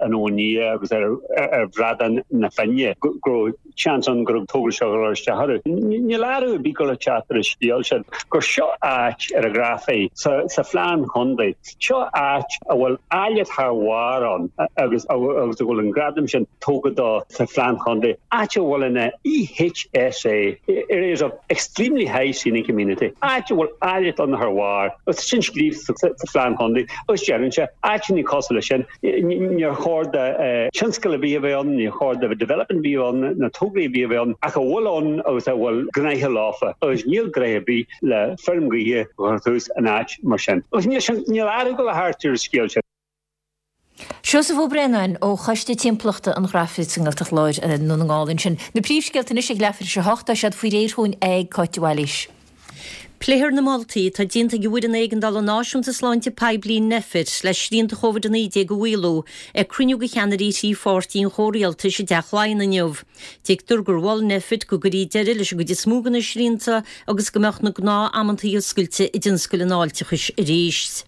an abhainn liath agus ar ar bhradán na Finne, go raibh seans ann go raibh togra seo ag dul isteach orthu. Níl athrú ar bith ag dul a teacht ar an scéal sin, gur seo áit ar an Ghrafaidh sa phlean chontae, seo áit a bhfuil áilleacht thar bharr ann agus a bhfuil an gradam sin tugtha dó sa phlean chontae, áit a bhfuil ina EHSA, Areas of Extremely High Scenic Amenity, áit a bhfuil áilleacht ann thar bharr, agus sin scríofa sa phlean chontae agus deireann sé, áiteanna cosúil leis sin, Níor chóir do thionscal ar bith a bheith ann, níor chóir do development ar bith a bheith ann, na tograí ar bith a bheith ann, ach a bhfuil ann agus a bhfuil gnoithe leofa, agus níl gnoithe ar bith le feirm gaoithe a chur suas in áit mar sin. Agus níl sin, níl athrú ag dul a theacht ar an scéal sin. Seosamh Ó Braonáin ó Choiste Timpeallachta an Ghrafaidh sa nGaeltacht Láir i nDún na nGall ansin. Na príomhscéalta anois ag leathuair tar éis a hocht, tá siad faoi réir chugainn ag Cáit de Bhailís. Pléifear na moltaí atá déanta ag an bhFoireann Éigeandála Náisiúnta Sláinte Poiblí, Nphet, le srianta Covid-19 a mhaolú ag cruinniú de cheannairí thrí pháirtí an chomhrialtais i dTeach Laighean inniu. Tuigtear gur mhol Nphet go gcuirfí deireadh leis an gcuid is mó de na srianta agus go mbeadh na gnáth-amantaí oscailte i dtionscal an fháilteachais arís.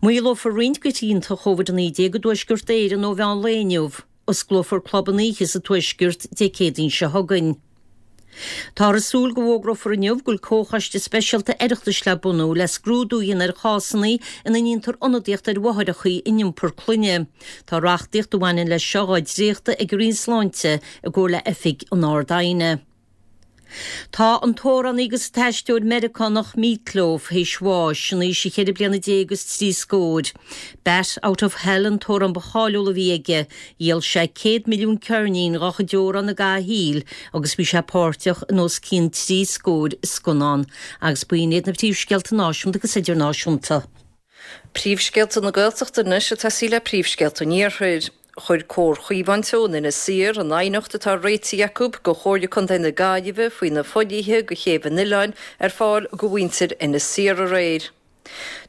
Maolófar roinnt de shrianta Covid-19 i dTuaisceart Éireann ó mheán lae inniu. Osclófar clubanna oíche sa Tuaisceart Dé Céadaoin seo chugainn. Táthar ag súil go bhfógrófar inniu go bhfuil comhchoiste speisialta Oireachtais le bunú le scrúdú a dhéanamh ar chásanna ina ndéantar ionadaíocht ar mháithreacha in iompar clainne. Tá reachtaíocht a bhaineann leis seo dhá dréachtadh ag an Roinn Sláinte i gcomhar le Oifig an Ard-Aighne. Tá an t-amhránaí agus an t-aisteoir Meiriceánach Meat Loaf théis bháis, in aois a cheithre bliana déag agus trí scóir. Bat Out of Hell an t-amhrán ba cháiliúla a bhí aige. Dhíol sé 100 milliún ceirnín dá chuid amhrán i gcaitheamh a shaoil agus bhí sé páirteach in os cionn trí scóir scannán. Agus b'in iad na príomhscéalta náisiúnta agus idirnáisiúnta. Príomhscéalta na Gaeltachta anois ag tosaí le príomhscéalta an Iarthair. Chuir Comhar Chaomhán Teo in Inis Oírr an aighneacht atá réitithe acu go Chomhairle Contae na Gaillimhe faoi na fodhlíthe go chéibh an oileáin ar fáil go mhuintir Inis Oírr aréir.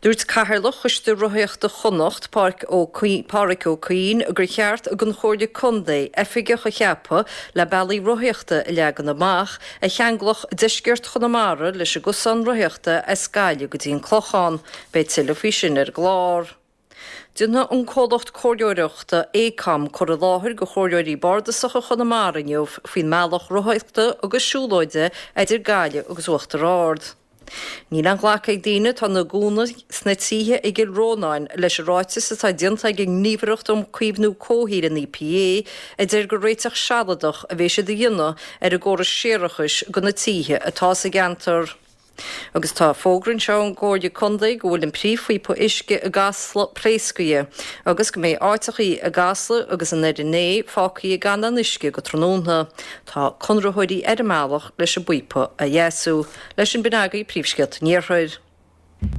Dúirt Cathaoirleach Choiste Rothaíochta Chonnacht, Pádraic Ó Cuinn, gur cheart don Chomhairle Contae oifigeach a cheapadh le bealaí rothaíochta a leagan amach a cheanglódh deisceart Chonamara leis an gcosán rothaíochta as Gaillimh go dtí an Clochán. Beidh tuilleadh faoi sin ar an gclár. Déanfaidh an comhlacht comhairleoireachta Aecom cur i láthair go chomhairleoirí bardasacha Chonamara inniu faoin mbealach rothaíochta agus siúlóide idir Gaillimh agus Uachtar Ard. Níl aon ghlacadh ag daoine atá ina gcónaí sna tithe i gCill Rónáin leis an ráiteas atá déanta ag an nGníomhaireacht um Caomhnú Comhshaoil, an EPA, a deir gur réiteach sealadach a bheidh siad a dhéanamh ar an gcóras séarachais do na tithe atá sa gceantar. Agus tá fógra anseo ón gComhairle Contae go bhfuil an príomhphíopa uisce i gCasla pléascaithe agus go mbeidh áiteachaí i gCasla agus in Doire Né fágtha gan aon uisce go tráthnóna. Tá conraitheoirí ar a mbealach leis an bpíopa a dheasú. Leis sin b'in agaibh príomhscéalta an Iarthair.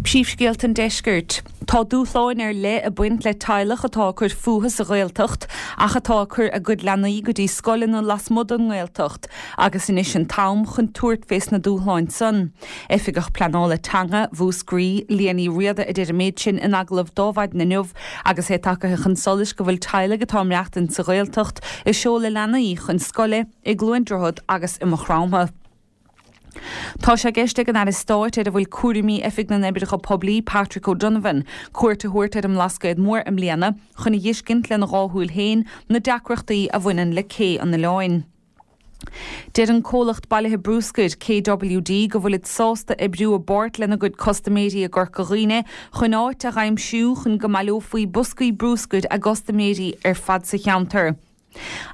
Príomhscéalta an Deiscirt. Tá dúshláin ar leith ag baint le teaghlach atá ag cur fúthu sa Ghaeltacht ach atá ag cur a gcuid leanaí go dtí scoileanna lasmuigh den nGaeltacht agus anois an t-am chun tabhairt fés na dúshláin san. Oifigeach Pleanála Teanga Mhúscraí, Liadh Ní Riada a deir an méid sin in agallamh d'Adhmhaidin inniu agus é tagaithe chun solais go bhfuil teaghlaigh atá ag maireachtaint sa Ghaeltacht ag seoladh leanaí chun scoile i gCluain Droichead agus i Maigh Chromtha. Tá sé i gceist ag an Aire Stáit ar a bhfuil cúraimí Oifig na nOibreacha Poiblí, Patrick O'Donovan, cuairt a thabhairt ar an mBlascaod Mór i mbliana chun a dh'fheiscint lena dhá shúil féin na deacrachtaí a bhaineann le cé an oileáin. Deir an comhlacht bailithe brúscair, KWD, go bhfuilid sásta oibriú i bpáirt lena gcuid custaiméirí i gCorca Dhuibhne chun áit a dh'aimsiú chun go mbaileofaí boscaí brúscair a gcustaiméirí ar fad sa cheantar.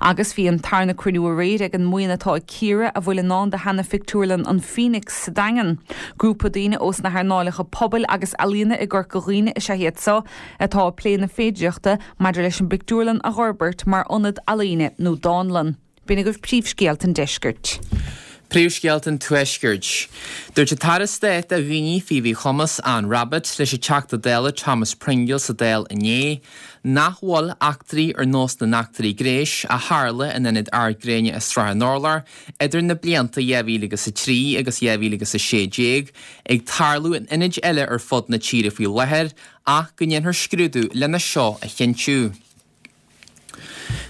Agus bhí an tarna cruinniú aréir ag an mbuíon atá ag cíoradh a bhfuil i ndán do sheana-phictiúrlann an Phoenix sa Daingean. Grúpa daoine ós na hearnáileacha pobail agus ealaíona i gCorca Dhuibhne is ea iad seo atá ag plé na féidireachta maidir leis an bpictiúrlann a dh'fhorbairt mar ionad ealaíne nó dánlann. B'in agaibh príomhscéalta an deiscirt. Príomhscéalta an Tuaiscirt. Dúirt an tAire Stáit do Dhaoine faoi Mhíchumas, Anne Rabbitte, leis an Teachta Dála Thomas Pringle sa Dáil inné, nach bhfuil eachtraí ar nós na n-eachtraí gnéis a tharla in Ionad Ard Gréine i Srath an Urláir idir na blianta 2003 agus 2016 ag tarlú in ionaid eile ar fud na tíre faoi láthair ach go ndéanfar scrúdú lena seo a chinntiú.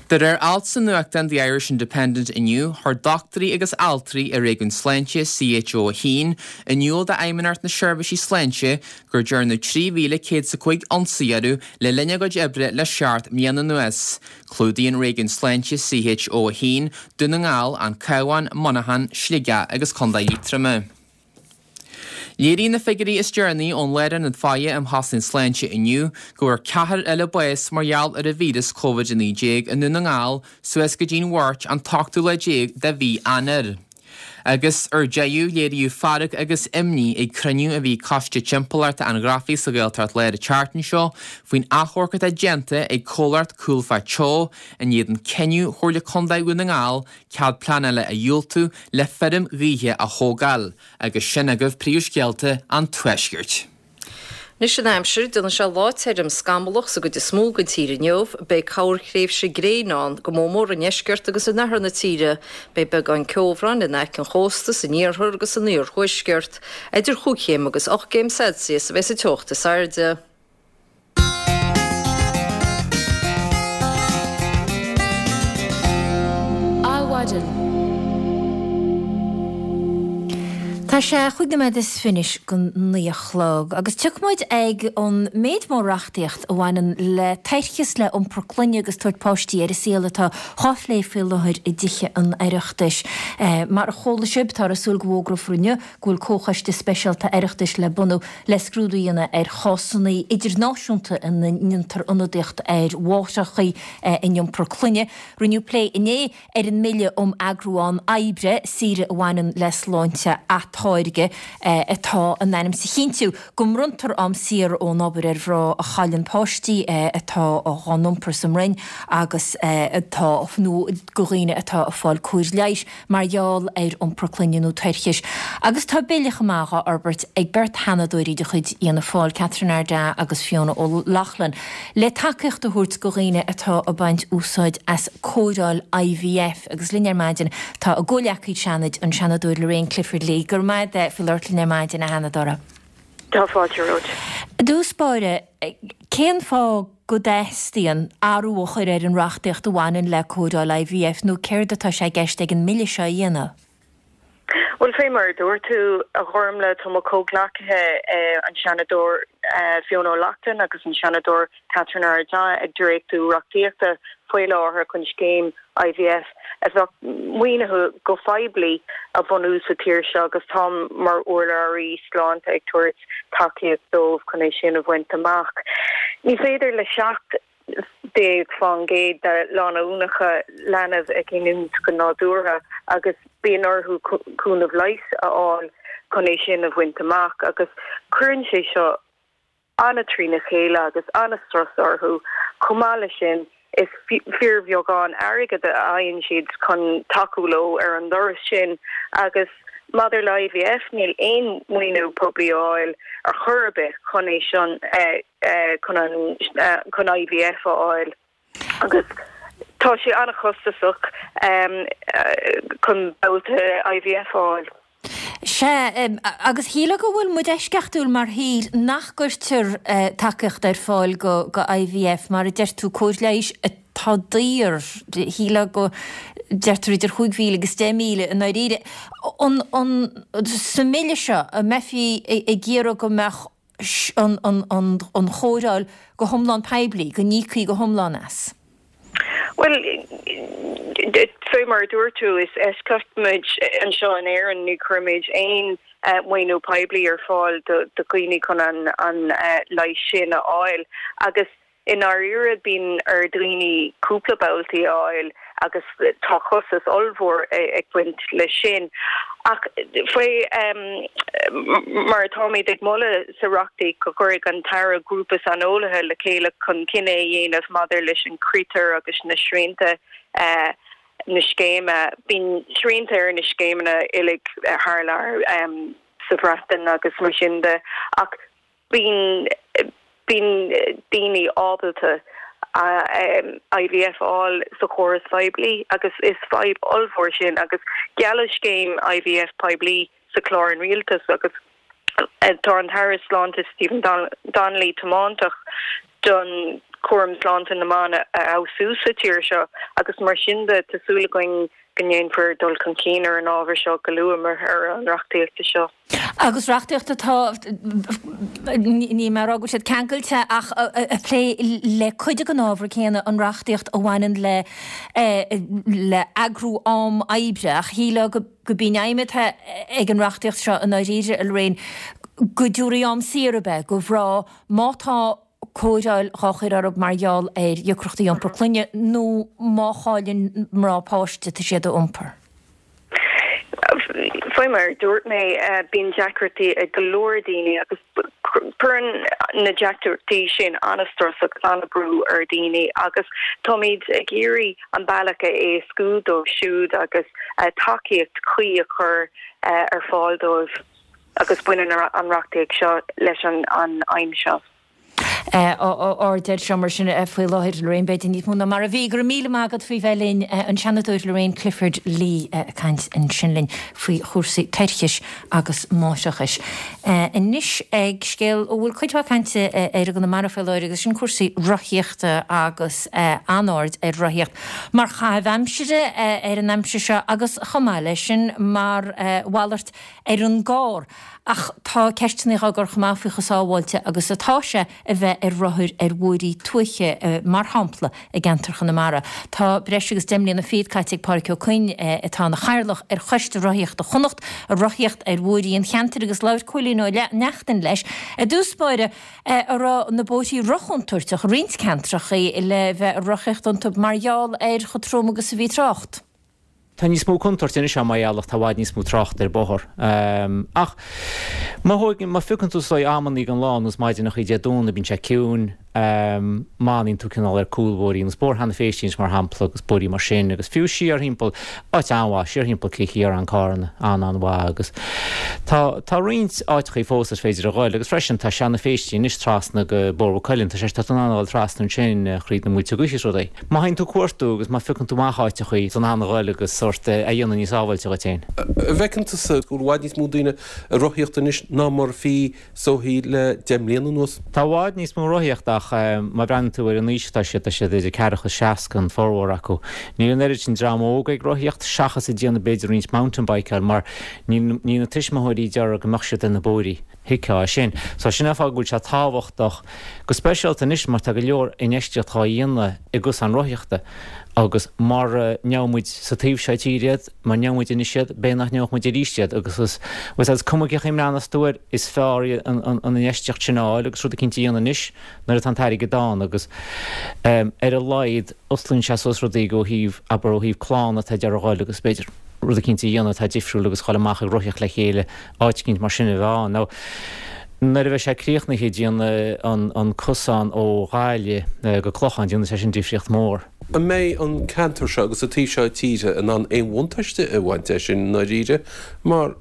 De réir alt sa nuachtán The Irish Independent inniu, chuir dochtúirí agus altraí i réigiún sláinte CHO 1 in iúl d'Fheidhmeannacht na Seirbhísí Sláinte gur dearnadh 3,105 ionsaí orthu le linn a gcuid oibre le seacht mbliana anuas. Clúdaíonn réigiún sláinte CHO 1 Dún na nGall, An Cabhán, Muineachán, Sligeach agus Contae Liatroma. Léiríonn na figiúirí is deireanaí ón Lárionad Faire um Chosaint Sláinte inniu go bhfuair ceathrar eile bás mar gheall ar an víreas Covid-19 i nDún na nGall suas go dtí'n Mháirt an t-ochtú lá déag de mhí Eanáir. Agus ar deireadh, léiríodh fearg agus imní ag cruinniú a bhí ag Coiste Timpeallachta an Ghrafaidh sa Ghaeltacht Láir an tseachtain seo faoin achomharc atá déanta ag comhlacht Coolfaa Teo in éadan cinneadh Chomhairle Contae Dhún na nGall cead pleanála a dhiúltú le feirm ghaoithe a thógáil, agus sin agaibh príomhscéalta an Tuaiscirt. Anois an aimsir, déanfaidh sé lá tirim scamallach sa gcuid is mó den tír inniu. Beidh corrthréimhse gréine ann, go mór mór i ndeisceart agus in oirthear na tíre. Beidh beagán ceobhráin in aice an chósta san iarthar agus san iarthuaisceart. Idir chúig chéim agus 8 gcéim Celsius a bheidh sa teocht is airde. Adhmhaidin. Tá sé chúig nóiméad is fiche go naoi a chlog agus tiocfaidh muid ag an méid mór reachtaíocht a bhaineann le toircheas, le iompar clainne agus tabhairt páistí ar an saol atá dhá phlé faoi láthair i dTithe an Oireachtais. Mar a chuala sibh, táthar ag súil go bhfógrófar inniu go bhfuil comhchoiste speisialta Oireachtais le bunú le scrúdú a dhéanamh ar chásanna idirnáisiúnta ina ndéantar ionadaíocht ar mháithreacha in iompar clainne. Rinneadh plé inné ar an mBille um Eagrú Am Oibre, Saoire a bhaineann le Sláinte Atáirgthe, atá in ainm is a chinntiú go mbronntar am saor ón obair ar mhná a chailleann páistí atá dhá n-iompar sa mbroinn agus atá nó do dhaoine atá ag fáil cóir leighis. mar gheall ar iompar clainne nó toirchis, agus tá bille chomh maith dhá fhorbairt ag beirt Sheanadóirí de chuid Fhianna Fáil, Catherine Ardagh agus Fiona O'Loughlin, le tacaíocht a thabhairt do dhaoine atá ag baint úsáid as cóireáil IVF. Agus linn ar maidin tá a gcomhghleacaí Seanaid, an Seanadóir Lorraine Clifford-Lee. Go raibh maith agat faoi labhairt linn ar maidin, a Sheanadóra. Tá fáilte romhat. I dtús báire, cén fáth go dteastaíonn athrú a chur ar an reachtaíocht a bhaineann le cóireáil IVF nó céard atá sé i gceist ag an mBille seo a dhéanamh? Bhuel, fé mar a dúirt tú, a Ghormlaith, tá mo chomhghleacaithe, an Seanadóir Fiona O'Loughlin agus an Seanadóir Catherine Ardagh ag dréachtú reachtaíochta faoi láthair chun scéim IVF a bheadh maoinithe go poiblí a bhunú sa tír seo agus táim mar urlabhraí sláinte ag tabhairt tacaíocht dóibh chun é sin a bhaint amach. Ní féidir le 17% de lánúineacha leanbh a ghiniúint go nádúrtha agus bíonn orthu cúnamh leighis a fháil chun é sin a bhaint amach agus cuireann sé seo an-trína chéile agus an-strus orthu. Chomh maith leis sin, is fíorbheagán airgid a fhaigheann siad chun tacú leo ar an dturas sin agus maidir le IVF, níl aon mhaoiniú poiblí á fháil ar chor ar bith chun é sin, chun an, chun IVF a fháil. Agus tá sé an-chostasach chun babhta IVF a fháil. Sea, agus shílfeá go bhfuil muid eisceachtúil mar thír nach gcuirtear tacaíocht ar fáil go IVF, mar a deir tú, cóir leighis atá daor. Shílfeá go deirtear idir 5,000 agus 10,000 i ndáiríre. An, an, sa mBille seo, an mbeifí ag iarraidh go mbeadh an chóireáil go hiomlán poiblí, go n-íocfaí go hiomlán as? Bhuel, fé mar a dúirt tú, is eisceacht muid anseo in Éirinn, ní chuirimid aon mhaoiniú poiblí ar fáil do dhaoine chun an leigheas sin a fháil agus I ndáiríre, bíonn ar dhaoine cúpla babhtaí a fháil agus tá costas ollmhór ag baint leis sin. Ach faoi mar atáimid ag moladh sa reachtaíocht go gcuirfidh an tAire grúpa saineolaithe le chéile chun cinneadh a dhéanamh maidir leis an critéir agus na srianta. na scéime. Bíonn srianta ar na scéimeanna uilig thar lear sa Bhreatain agus mar sin de ach bíonn bíonn daoine ábalta IVF a fháil sa chóras phoiblí agus is fadhb ollmhór sin agus gealladh scéim IVF poiblí sa chlár an rialtais agus tá an tAire Sláinte Stephen Donnelly tiomanta don chúram sláinte na mban a fheabhsú sa tír seo agus mar sin de tá súil againn go ndéanfar dul chun cinn ar an ábhar seo go luath mar thoradh an reachtaíochta seo. Agus reachtaíocht atá, níl mé ag rá go bhfuil siad ceangailte ach ag plé le cuid den ábhar céanna, an reachtaíocht a bhaineann le le eagrú am oibre ach shílfeá go gurb í an aidhm atá ag an reachtaíocht seo i ndáiríre, a Lorraine, go dtabharfaí am saor ab ea do mhná má tá cóireáil dhá chur orthu mar gheall ar dheacrachtaí iompar clainne nó má chailleann mná páiste atá siad a iompar. Faoi mar a dúirt mé, bíonn deacrachtaí ag go leor daoine agus cuireann na deacrachtaí sin an-strus agus an-brú ar dhaoine agus táimid ag iarraidh an bealach a éascú dóibh siúd agus tacaíocht chuí a chur ar fáil dóibh agus baineann an reachtaíocht seo leis an aidhm seo. Aird air seo mar sin faoi láthair, Lorraine, b'fhéidir níos mó ná mar a bhí. Go raibh míle maith agat faoi bheith linn, an Seanadóir Lorraine Clifford-Lee ag caint ansin linn faoi chúrsaí toirchis agus máithreachais. Anois ag scéal a bhfuil cuid mhaith cainte air i gConamara faoi láthair agus sin cúrsaí rothaíochta agus an-aird ar rothaíocht mar chaitheamh aimsire ar an aimsir seo agus chomh maith leis sin mar mhalairt ar an gcarr. Ach tá ceisteanna á gcur chomh maith faoi chomh sábháilte agus atá sé a bheith ar rothar ar bhóithrí tuaithe, mar shampla i gceantar Chonamara. Tá breis agus deich mbliana fichead caite ag Pádhraic Ó Coinn, atá ina chathaoirleach ar Choiste Rothaíochta Chonnacht, ag rothaíocht ar bhóithrí an cheantair agus labhair Cóilín Ó Neachtain leis i dtús báire an raibh na bóithrí rochontúirteach i roinnt ceantracha le bheith ag rothaíocht iontu mar gheall ar chomh trom agus a bhí trácht. Tá níos mó contúirte anois ann mar gheall ach tá i bhfad níos mó tráchta ar bóthar. Ach má thóigeann, má phiocann tú is dóigh amannaí den lá, nós maidineachaí Dé Domhnaigh, bíonn sé ciúin, má fhanann tú cineál ar cúlbhóithrí, nós Bóthar Sheanadh Phéistí anois mar shampla agus bóithrí mar sin agus fiú siar thimpeall, áit an-mhaith, siar thimpeall Cill Chiaráin, Carna, an-an-mhaith agus tá, tá roinnt áiteachaí fós is féidir a ghoil agus freisin tá Seanadh Phéistí anois trasna go Bóthar Mhaigh Cuilinn, tá sé, tá tú in ann a ghoil trasna ansin thríd na muilte gaoithe is rudaí. Má théann tú ag cuartú agus má phiocann tú amach áiteachaí, tá tú in ann a ghoil agus sórt é a dhéanamh níos sábháilte dhuit féin. An bhfeiceann tusa go bhfuil i bhfad níos mó daoine ag rothaíocht anois ná mar a bhí is dóichí le 10 mbliana anuas? Tá i bhfad níos mó rothaíocht ach má bhreathnaíonn tú ar an aois atá siad, tá siad idir ceathracha is 60 an formhór acu. Níl an oiread sin dream óg ag rothaíocht seachas ag déanamh b'fhéidir roinnt mountain bikeáil mar níl na tuismitheoirí ag iarraidh go mbeadh siad ar na bóithrí. Thuigfeá é sin. So sin an fáth go bhfuil sé tábhachtach, go speisialta anois mar tá go leor infheistíocht dhá dhéanamh i gcosáin rothaíochta agus mara ndeabhaidh muid sa taobh seo tíre iad, mara ndeabhaidh muid anois iad, b'fhéidir nach ndeabhadh muid arís iad agus is, bhuel is cuma cén chaoi a mbreathnós tú air, is fearr an infheistíocht sin a fháil agus rud eicínt a dhéanamh anois nuair atá an t-airgead ann agus ar a laghad osclaíonn sé suas rudaí ó thaobh, abair ó thaobh clann atá ag iarraidh a ghoil agus b'fhéidir rud eicínt a dhéanamh atá difriúil agus dhul amach ag rothaíocht le chéile áit eicínt mar sin a bheith ann. Now, nuair a bheidh sé críochnaithe, déanfaidh an cosán ó Ghaillimh go Clochán, déanfaidh sé sin difríocht mhór. An mbeidh an ceantar seo agus an taobh seo tíre in ann aon bhuntáiste a bhaint de sin i ndáiríre mar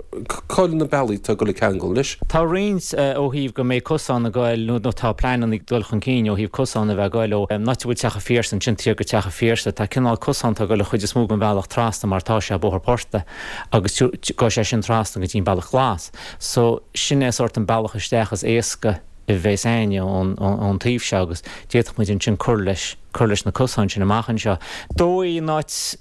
cá'il na bealaí atá ag dul ag ceangal leis? Tá roinnt ó thaobh go mbeidh cosán ag goil nó tá pleananna ag dul chun cinn ó thaobh cosán a bheith ag goil ó an áit a bhfuil Teach an Phiarsaigh ansin thiar go Teach an Phiarsaigh. Tá cineál cosán atá ag goil an chuid is mó den bhealach trasna mar tá sé Bóthar Portaigh. agus gabhfaidh sé sin trasna go dtí an Bealach Glas. So, sin é sórt an bealach isteach is éasca a bheas a'inne ón taobh seo agus d'fhéadfadh muid ansin cur leis, cur leis na cosáin sin amach anseo. Dóigh an áit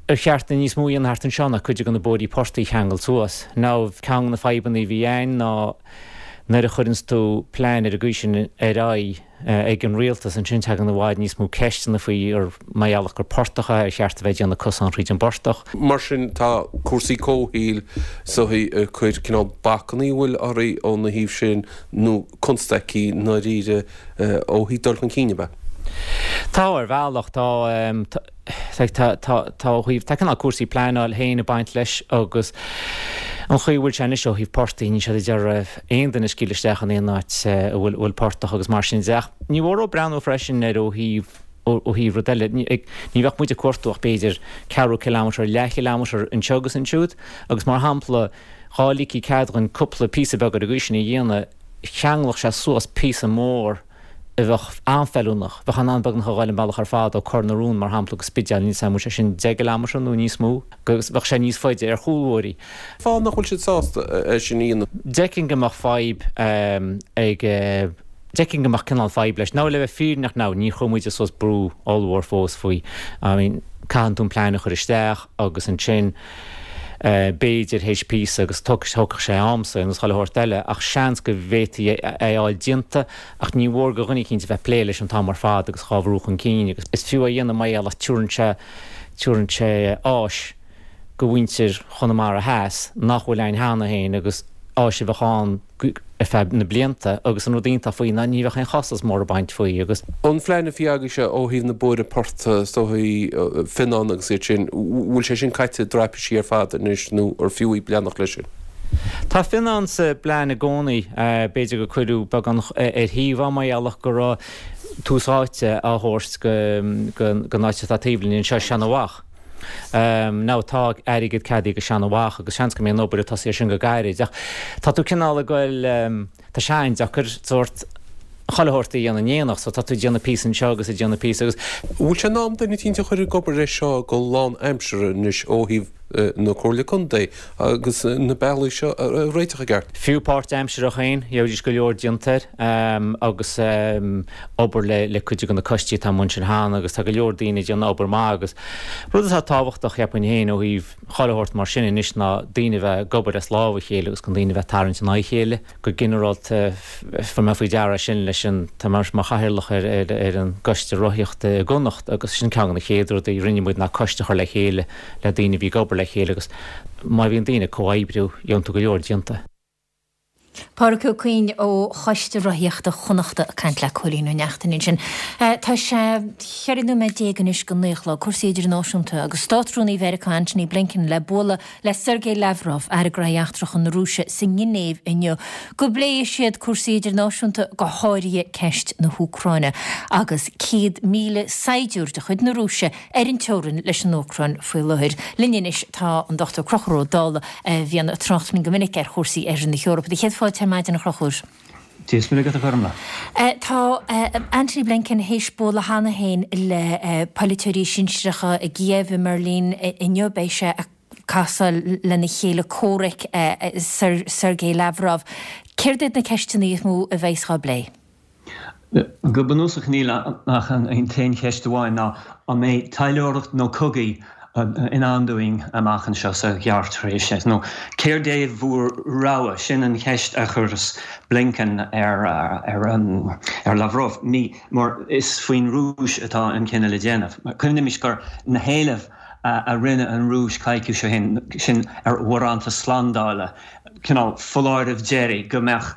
ar cheart níos mó a dhéanamh thart anseo ná cuid de na bóithrí portaigh a cheangal suas. Now, ceann de na fadhbanna a bhí a'inn ná nuair a chuireanns tú plean ar an gcaoi sin ar aghaidh, ag an rialtas ansin tagann i bhfad níos mó ceisteanna faoi ar mar gheall gur portach é ar cheart a bheith ag déanamh cosán thríd an bportach. Mar sin tá cúrsaí comhshaoil is dóichí ag cur cineál bacannaí an bhfuil oraibh óna thaobh sin nó constaicí i ndáiríre ó thaobh dul chun cinn ab ea? Tá ar bhealach, tá. Tá, tá, tá ó thaobh, tá cineál cúrsaí pleanáil féin ag baint leis agus an chaoi a bhfuil sé anois ó thaobh portaigh, níl siad ag iarraidh aon duine a scaoileadh isteach in aon áit a bhfuil, bhfuil portach agus mar sin de. Ach ní mór breathnú freisin ar ó thaobh. Ó thaobh rud eile, ní bheadh muid ag cuartú ach b'fhéidir ceathrú kilometre, leathchileamatar anseo agus ansiúd agus mar shampla dhá ligfí cead dhúinn cúpla píosa beag ar an gcaoi sin a dhéanamh, cheanglódh sé suas píosa mór a bheadh an-fheiliúnach, bheadh in ann beagnach a ghoil an bealach ar fad ó Cor na Rón mar shampla go Spidéal, níl 's a'm an bhfuil sé sin 10 gcileamatar nó níos mó, agus bheadh sé níos faide ar chúlbhóithrí. Fáth nach bhfuil siad sásta é sin a dhéanamh. D'fheicfinn go mbeadh fadhb ag. D'fheicfinn go mbeadh cineál fadhb leis. Now le bheith fírinneach now, níor chuir muide suas brú ollmhór fós faoi. I mean, caitheann tú an plean a chur isteach agus ansin b'fhéidir théis píosa agus tógfaidh sé am sa nó chuile shórt eile ach seans go bhféadfaí é a fháil déanta ach ní mhór do dhuine eicínt a bheith ag plé leis an t-am ar fad agus dhá bhrú chun cinn agus is fiú é a dhéanamh mar gheall ach tabharann sé, tabharann sé áis go mhuintir Chonamara Theas nach bhfuil ann cheana féin agus áis a bheadh ann ar feadh na blianta agus an rud iontach faoi ná ní bheadh aon chostas mór ag baint faoi agus. An phlean a bhí agaibhse ó thaobh na bóithre portaigh, is dóigh, Fionnán agus iad sin, bhfuil sé sin caite i dtraipisí ar fad anois nó ar fiú í leanacht leis sin? Tá Fionnán sa bplean i gcónaí. B'fhéidir gur cuireadh beagán ar thaobh é mar gheall go raibh tús áite á thabhairt don áit atá taobh linn anseo, Seanabhach. Now tá airgead ceadaithe do Seanabhach agus seans go mbeidh an obair ag tosaí ar sin go gairid ach tá tú cineál ag goil, tá sé an-deacair sórt chuile shórt a dhéanamh in éineacht so tá tú ag déanamh píosa anseo agus ag déanamh píosa agus. Bhfuil sé in am duine eicínt a chur ag obair air seo go lán-aimseartha anois ó thaobh na Comhairle Contae agus na bealaí seo a réiteach i gceart? Fiú páirt-aimseartha féin, gheobhaidís go leor déanta air agus obair le le cuid de na coistí atá amuigh ansin cheana agus tá go leor daoine ag déanamh obair maith agus rud atá tábhachtach cheapfainn féin ó thaobh chuile shórt mar sin anois ná daoine a bheith ag obair as lámh a chéile agus gan daoine a bheith ag tarraingt in aghaidh a chéile. Go ginearálta fuair mé faoi deara sin leis an, tá mé mar chathaoirleach ar ar ar an gcoiste rothaíochta i gConnacht agus sin ceann de na chéad rudaí a rinne muid ná coiste a chur le chéile le daoine a bhí ag obair le chéile agus má bhíonn daoine ag comhoibriú gheobhann tú go leor déanta. Pádraic Ó Cuinn ó Choiste Rothaíochta Chonnachta ag caint le Cóilín Ó Neachtain ansin. Tá sé 14 nóiméad anois go 9 a chlog. Cúrsaí idirnáisiúnta agus Státrúnaí Mheiriceá Antony Blinken le bualadh le Sergei Lavrov, Aire Gnóthaí Eachtracha na Rúise, sa nGinéiv inniu go bpléifidh siad cúrsaí idirnáisiúnta, go háirithe ceist na hÚcráine agus 100,000 saighdiúir de chuid na Rúise ar an teorainn leis an Úcráin faoi láthair. Linn anois tá an Dr Conchúr Ó Dálaigh a bhíonn ag trácht linn go minic ar chúrsaí Oirthear na hEorpa. Do chéad fáilte ar maidin a Chonchúir. Dia is Muire agat a Ghormlaith. Tá Antony Blinken théis bualadh cheana féin le polaiteoirí sinsearacha i gCíév, i mBeirlín inniu. Beidh sé ag casáil lena chéile comhraic Sergei Lavrov. Céard iad na ceisteanna is mó a bheas á bplé? Go bunúsach níl ach an t-aon cheist amháin ná an mbeidh taidhleoireacht nó cogaí i ndán dúinn amach anseo sa ghearrthréimhse nó céard é bhur rogha? Sin an cheist a chuireas Blinken ar ar Lavrov mar is faoin Rúis atá an cinneadh le déanamh. Cuimhnímis gur na héilimh a rinne an Rúis coicís ó shin, sin ar bharántas slándála, cineál foláireamh deiridh go mbeadh,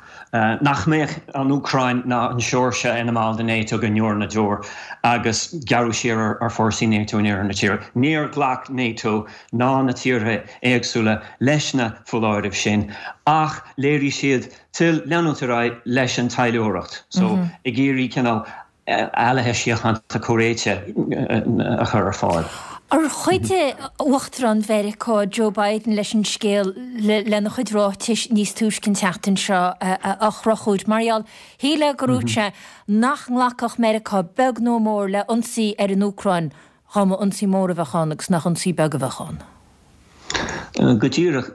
nach mbeadh an Úcráin ná an tSeoirsia ina mball de NATO go ndeor na ndeor agus gearradh siar ar fórsaí NATO in oirthear na tíre. Níor ghlac NATO ná na tíortha éagsúla leis na foláirimh sin ach léirigh siad toil leanúint ar aghaidh leis an taidhleoireacht. So ag iarraidh cineál ealaithe síochánta comhréite a chur ar fáil. Ar chuidigh Uachtarán Mheiriceá Joe Biden leis an scéal lena chuid ráitis níos túisce an tseachtain seo a Chonchúir? Mar gheall, shílfeá go ndúirt sé nach nglacfadh Meiriceá beag nó mór le ionsaí ar an Úcráin dá mba ionsaí mór a bheadh ann agus nach ionsaí beag a bheadh ann. Go díreach.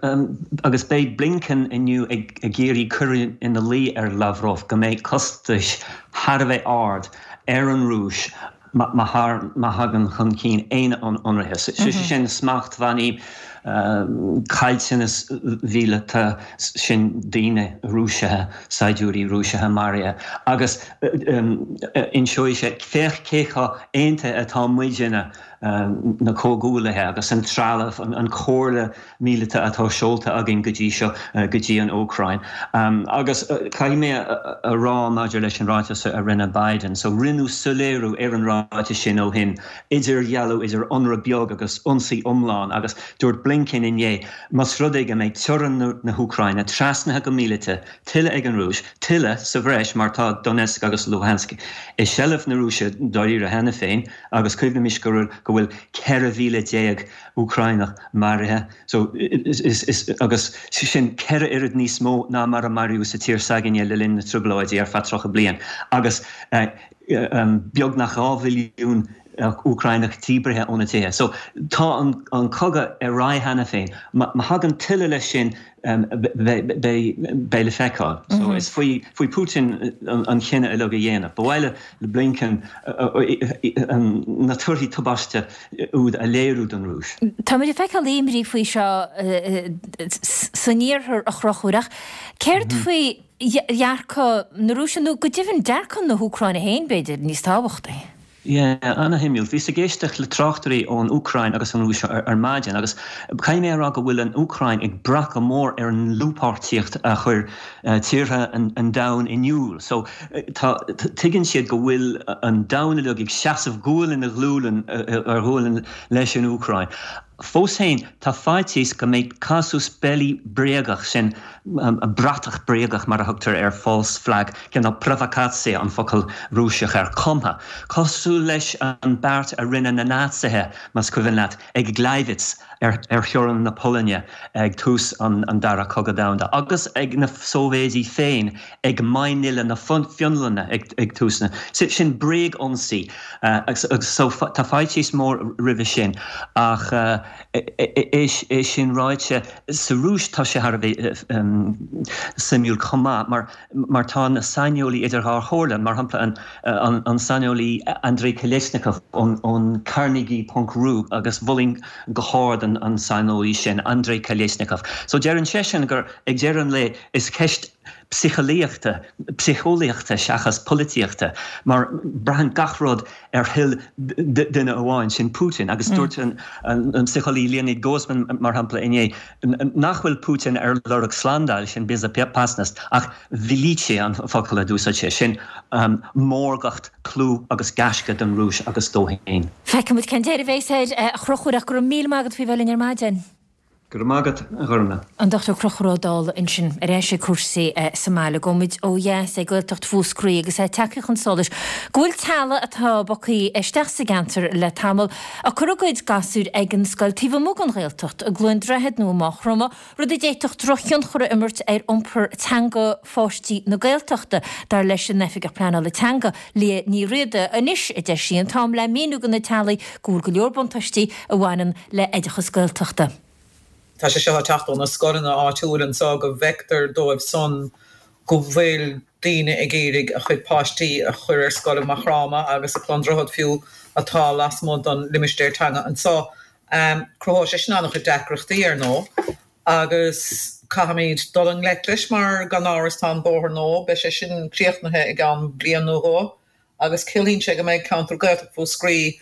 Agus beidh Blinken inniu ag iarraidh cur ina luí ar Lavrov go mbeidh costais thar a bheith ard ar an Rúis má thagann chun cinn aon ionraithe. Sé sin smachtbhannaí, caillteanas mhíleata, sin daoine Rúiseacha, saighdiúirí Rúiseacha maraithe. Agus inseoidh sé, féach cé chomh aontaithe atá muidinne na comhghuaillithe agus an trealamh, an chomhairle míleata atá seolta againn go dtí seo go dtí an Úcráin. Agus caithfidh mé a rá maidir leis an ráiteas a rinne Biden, so rinneadh soiléiriú ar an ráiteas sin ó shin, idirdhealú idir ionradh beag agus ionsaí iomlán agus dúirt Blinken. Blinken inné, más rud é go mbeidh teorainn na hÚcráine trasnaithe go míleata tuilleadh ag an Rúis, tuilleadh sa bhreis mar tá Donetsk agus Luhansk i seilbh na Rúise dáiríre cheana féin agus cuimhnimis go bhfuil 14,000 Úcráineach maraithe so agus sin 4 oiread níos mó ná mar a maraíodh sa tír s'againne le linn na dtrioblóidí ar feadh 30 bliain agus beagnach 2 mhilliún Úcráineach díbrithe óna dtithe. So tá an cogadh ar aghaidh cheana féin. Má thagann tuilleadh leis sin beidh le feiceáil. So is faoi Putin an cinneadh uilig a dhéanamh. Ba mhaith le Blinken na torthaí tubaiste úd a léiriú don Rúis. Táimid ag feiceáil imní faoi seo san iarthar a Chonchúir ach céard faoi dhearcadh na Rúise nó go deimhin dearcadh na hÚcráine féin b'fhéidir níos tábhachtaí? Yeah, ana-shuimiúil. Bhíos ag éisteacht le tráchtairí ón Úcráin agus an Rúis ar maidin agus caithfidh mé a rá go bhfuil an Úcráin ag brath go mór ar an ndlúthpháirtíocht a chuir tíortha an domhain in iúl. So tá, tuigeann siad go bhfuil an domhan uilig ag seasamh gualainn ar ghualainn ar ghualainn leis an Úcráin. Fós féin, tá faitíos go mbeidh casus belli bréagach, sin bratach bréagach mar a thugtar air, false flag, cineál provokatsiya an focal Rúiseach air, cumtha, cosúil leis an beart a rinne na Naitsithe, más cuimhin leat, ag Gleiwitz ar theorainn na Polainne ag tús an Dara Cogadh Domhanda, agus ag na Sóivéidí féin ag Mainnila na Fionlainne ag tús na. Sin bréag-ionsaí agus so tá faitíos mór roimhe sin ach é sin ráite, sa Rúis tá sé thar a bheith suimiúil chomh maith mar mar tá na saineolaí idir dhá chomhairle, mar shampla an saineolaí Andrei Kolesnikov ón Carnegie ponc ru agus mholfainn go hard an saineolaí sin, Andrei Kolesnikov. So deireann seisean gur ag deireadh an lae is ceist psiceolaíochta, psiceolaíochta seachas polaitíochta, mar braitheann gach rud ar thoil duine amháin, sin Putin. Agus dúirt an psiceolaí Leonid Gozman, mar shampla, inné nach bhfuil Putin ar lorg slándáil, sin bezopasnost, ach velichie an focal a d'úsáid sé, sin mórgacht, clú agus gaisce don Rúis agus dó féin. Feicfimid cén deireadh a bheas air, a Chonchúir, ach go raibh míle maith agat faoi bheith linn ar maidin. Go raibh maith agat, a Ghormfhlaith. An Dr Conchúr Ó Dálaigh ansin, ar ais ag cúrsaí sa mbaile. Gabhfaimid ó dheas ag Gaeltacht Mhúscraí agus é tagtha chun solais go bhfuil teaghlaigh atá bogtha isteach sa gceantar le tamall ag cur a gcuid gasúir ag an scoil taobh amuigh den Ghaeltacht, i gCluain Droichead nó i Maigh Chromtha, rud a d'fhéadfadh drochthionchar a imirt ar iompar teanga pháistí na Gaeltachta, dar leis an Oifigeach Pleanála Teanga, Liadh Ní Riada. Anois, a deir sí, an t-am le míniú do na teaghlaigh go bhfuil go leor buntáistí a bhaineann le oideachas Gaeltachta. Tá sé seo ag teacht ó na scoileanna áitiúil anseo go bhfeictear dóibh san go bhfuil daoine ag iarraidh a chuid páistí a chur ar scoil i Maigh Chromtha agus i Cluain Droichead fiú atá lasmuigh den limistéar teanga anseo. Cruthóidh sé sin an-chuid deacrachtaí ar ndóigh agus caithfimid dul i ngleic leis mar gan amhras tá an bóthar nua, beidh sé sin críochnaithe i gceann bliain nó dhó. agus ciallaíonn sé go mbeidh ceantar Gaeltacht Mhúscraí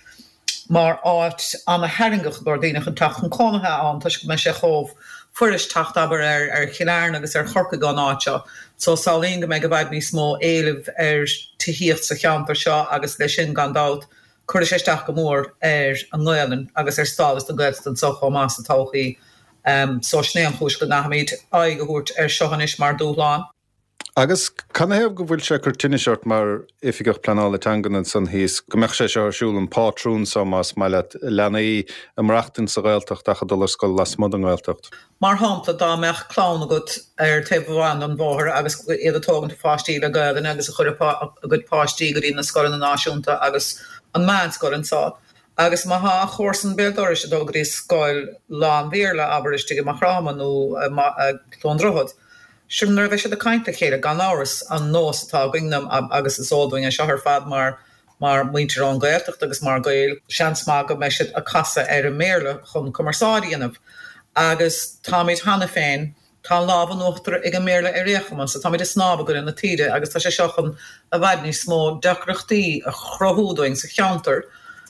mar áit ana-tharraingeach i gcomhair daoine chun teacht chun cónaithe ann toisc go mbeidh sé chomh fuirist teacht, abair, ar Chill Airne agus ar Chorcaigh ón áit seo. So samhlaím go mbeidh i bhfad níos mó éilimh ar tithíocht sa cheantar seo agus leis sin, gan dabht, cuirfidh sé isteach go mór ar an nGaelainn agus ar stádas na Gaeltachta anseo chomh maith sa todhchaí. So sin é an chúis go gcaithfimid aghaidh a thabhairt air seo anois mar dúshlán. Agus canathaobh go bhfuil sé ag cur tinnis ort mar Oifigeach Pleanála Teangan ansan thíos, go mbeadh sé seo ar siúl, an pátrún so más maith leat, leanaí ag maireachtaint sa Ghaeltacht ach ag dul ar scoil lasmuigh den nGaeltacht? Mar shampla, dá mbeadh clann agat ar taobh amháin den bhóthar agus iad ag tógaint a pháistí le Gaelainn agus ag cur a gcuid páistí go dtí na scoileanna náisiúnta agus an meánscoil anseo, Agus má thá a chomharsan béal dorais ag dul go dtí scoil lán-Bhéarla, abair, istigh i Maigh Chromtha nó i gCluain Droichead, sure nuair a bheidh siad ag caint le chéile, gan amhras, an nós atá againn, agus is eol dúinn é seo ar fad mar mar muintir ón Ghaeltacht agus mar Ghaeil, seans maith go mbeidh siad ag casadh ar an mBéarla chun cumarsáid a dhéanamh. Agus táimid cheana féin Tá an lámh in uachtar ag an mBéarla ar aon chuma, so táimid ag snámh i gcoinne na taoide agus tá sé seo chun i bhfad níos mó deacrachtaí a chruthú dúinn sa cheantar.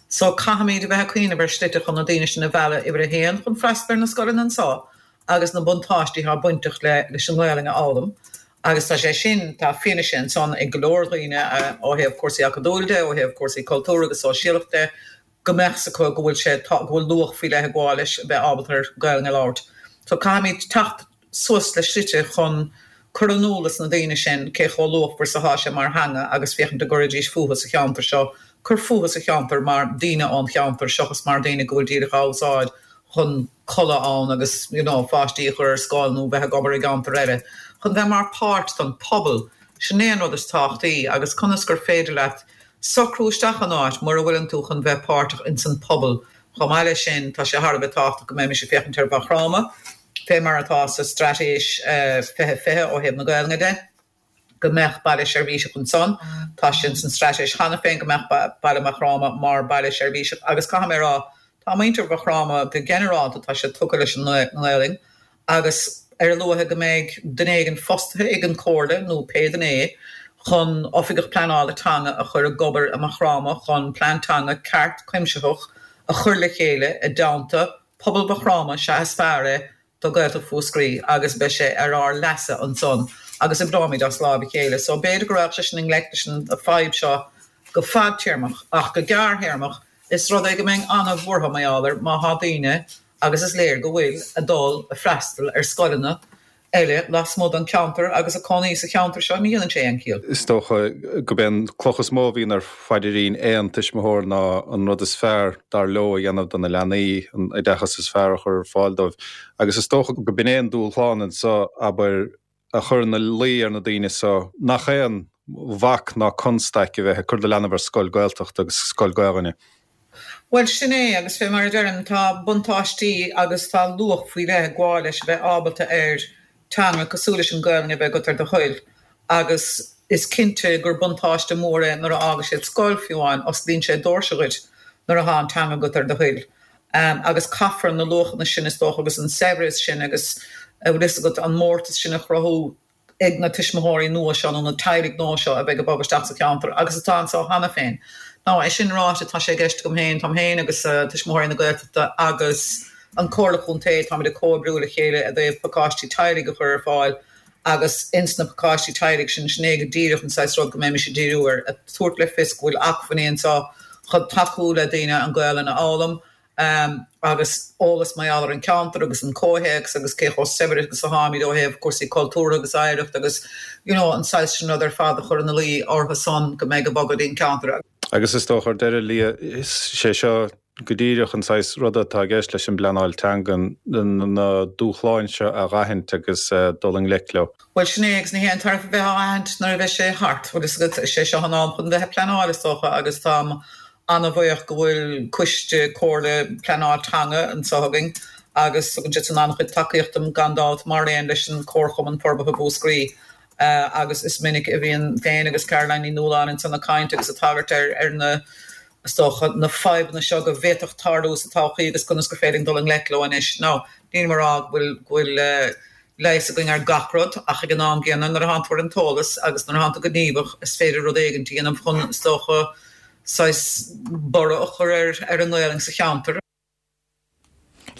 So caithfimid a bheith ag cuimhneamh ar shlite chun na daoine sin a mhealladh, uimhir a haon, chun freastal ar na scoileanna anseo agus na buntáistí atá bainteach le leis an nGaelainn a fhoghlaim agus tá sé sin, tá fianaise ansan ag go leor daoine ó thaobh cúrsaí acadúil de, ó thaobh cúrsaí cultúr agus sóisialach de. go mbeadh 's acu go bhfuil sé, go bhfuil luach faoi leith ag gabháil leis a bheith ábalta ar Gaelainn a labhairt. So caithfimid teacht suas le slite chun cur in iúl dos na daoine sin cé chomh luachmhar is atá sé mar theanga agus féachaint an gcuirfidís fúthu sa cheantar seo, cur fúthu sa cheantar mar daoine ón cheantar seachas mar daoine go bhfuil díreach á úsáid chun codladh ann agus you know pháistí a chur ar scoil nó bheith ag obair i gceantar eile, chun bheith mar páirt den pobal. Sin é an rud is tábhachtaí agus conas gur féidir leat socrú isteach in áit mura bhfuileann tú chun bheith páirteach ins an pobal. Chomh maith leis sin tá sé thar a bheith tábhachtach go mbeimis ag féachaint ar Mhaigh Chromtha fé mar atá sa Straitéis 2020 ó thaobh na Gaelainne de, go mbeadh baile seirbhíseach ansan. Tá sé ins an straitéis cheana féin go mbeadh baile Mhaigh Chromtha mar baile seirbhíseach agus caithfidh mé a rá, tá muintir Mhaigh Chromtha go ginearálta, tá siad tugtha leis an nGaelainn agus ar a luaithe go mbeidh duine éigin fostaithe ag an Chomhairle nó pé duine é chun oifigeach pleanála teanga a chur ag obair i Maigh Chromtha chun plean teanga ceart cuimsitheach a chur le chéile i dteannta pobal Mhaigh Chromtha sea is fearr é do Ghaeltacht Mhúscraí agus beidh sé ar ár leasa ansan agus oibreoimid as láimh a chéile. So b'fhéidir go raghadh sé sin i ngleic leis an fadhb seo go fadtéarmach ach go gearrthéarmach is rud é go mbeinn an-bhuartha mar gheall air má thá daoine, agus is léir go bhfuil, ag dul ag freastal ar scoileanna eile lasmuigh den cheantar agus ag cónaí sa cheantar seo, ní dhéanann sé aon chiall. Is dócha gurb é an cloch is mó a bhíonn ar phaidirín aon tuismitheoir ná an rud is fearr dar leo a dhéanamh do na leanaí, an oideachas is fearr a chur ar fáil dóibh. Agus is dócha go b'in é an dúshlán anseo, abair, a chur ina luí ar na daoine so nach aon bhac ná constaic a bheith ag cur do leanbh ar scoil Gaeltachta agus scoil Gaelainne. Bhuel, sin é, agus fé mar a deirim, tá buntáistí agus tá luach faoi leith ag gabháil leis a bheith ábalta ar teanga cosúil leis an Gaelainn a bheith agat ar do thoil agus is cinnte gur buntáiste mór é nuair a fhágas siad scoil, fiú amháin, osclaíonn sé doirse dhuit nuair atá an teanga agat ar do thoil. Agus caithfear na luachanna sin, is dócha, agus an saibhreas sin agus, a bhfuil fhios agat, an mórtas sin a chruthú ag na tuismitheoirí nua seo nó na teaghlaigh nua seo a bheidh ag bogadh isteach sa cheantar agus atá anseo cheana féin. Now, é sin ráite, tá sé i gceist agam féin, táim féin agus Tuismitheoirí na Gaeltachta agus an Comhairle Chontae, táimid ag comhoibriú le chéile i dtaobh pacáistí teaghlaigh a chur ar fáil agus ins na pacáistí teaghlaigh sin, sin é go díreach an saghas rud go mbeimis ag díriú air, ag tabhairt le fios go bhfuil acmhainní anseo chun tacú le daoine an Ghaelainn a fhoghlaim. agus eolas mar gheall ar an cheantar agus an comhthéacs agus cé chomh saibhir agus atáimid ó thaobh cúrsaí cultúrtha agus oidhreacht agus you know an saghas sin rud ar fad a chur ina luí orthu san go mbeidh ag bogadh dtí'n ceantar. Agus is dócha ar deireadh, Liadh, is sé seo go díreach an saghas ruda atá i gceist leis an bpleanáil teanga, na dúshláin seo a dh'aithint agus dul i ngleic leo. Bhuel sin é agus ní haon tairbhe bheith á aithint nuair a bheidh sé thart, bhfuil fhios agat, is é seo an am chun bheith ag pleanáil is dócha agus táim an-bhuíoch go bhfuil coiste comhairle pleanáil teanga anseo againn agus tugann siad san an-chuid tacaíocht dom gan dabht mar aon leis an Comharchumann Forbartha Mhúscraí agus is minic a bhíonn féin agus Caroline Ní Nualláin ansan ag caint agus ag tagairt ar ar na is dócha na fadhbanna seo go bhféadfadh tarlú sa todhchaí agus conas gur féidir linn dul i ngleic leo anois. Now nílim ag rá go bhfuil go bhfuil leigheas againn ar gach rud, ach ag an am gcéanna, nuair atánn tú ar an t-eolas agus nuair atánn tú gníomhach, is féidir rud éigin a dhéanamh chun, is dócha, saghas borradh a chur ar ar an nGaelainn sa cheantar.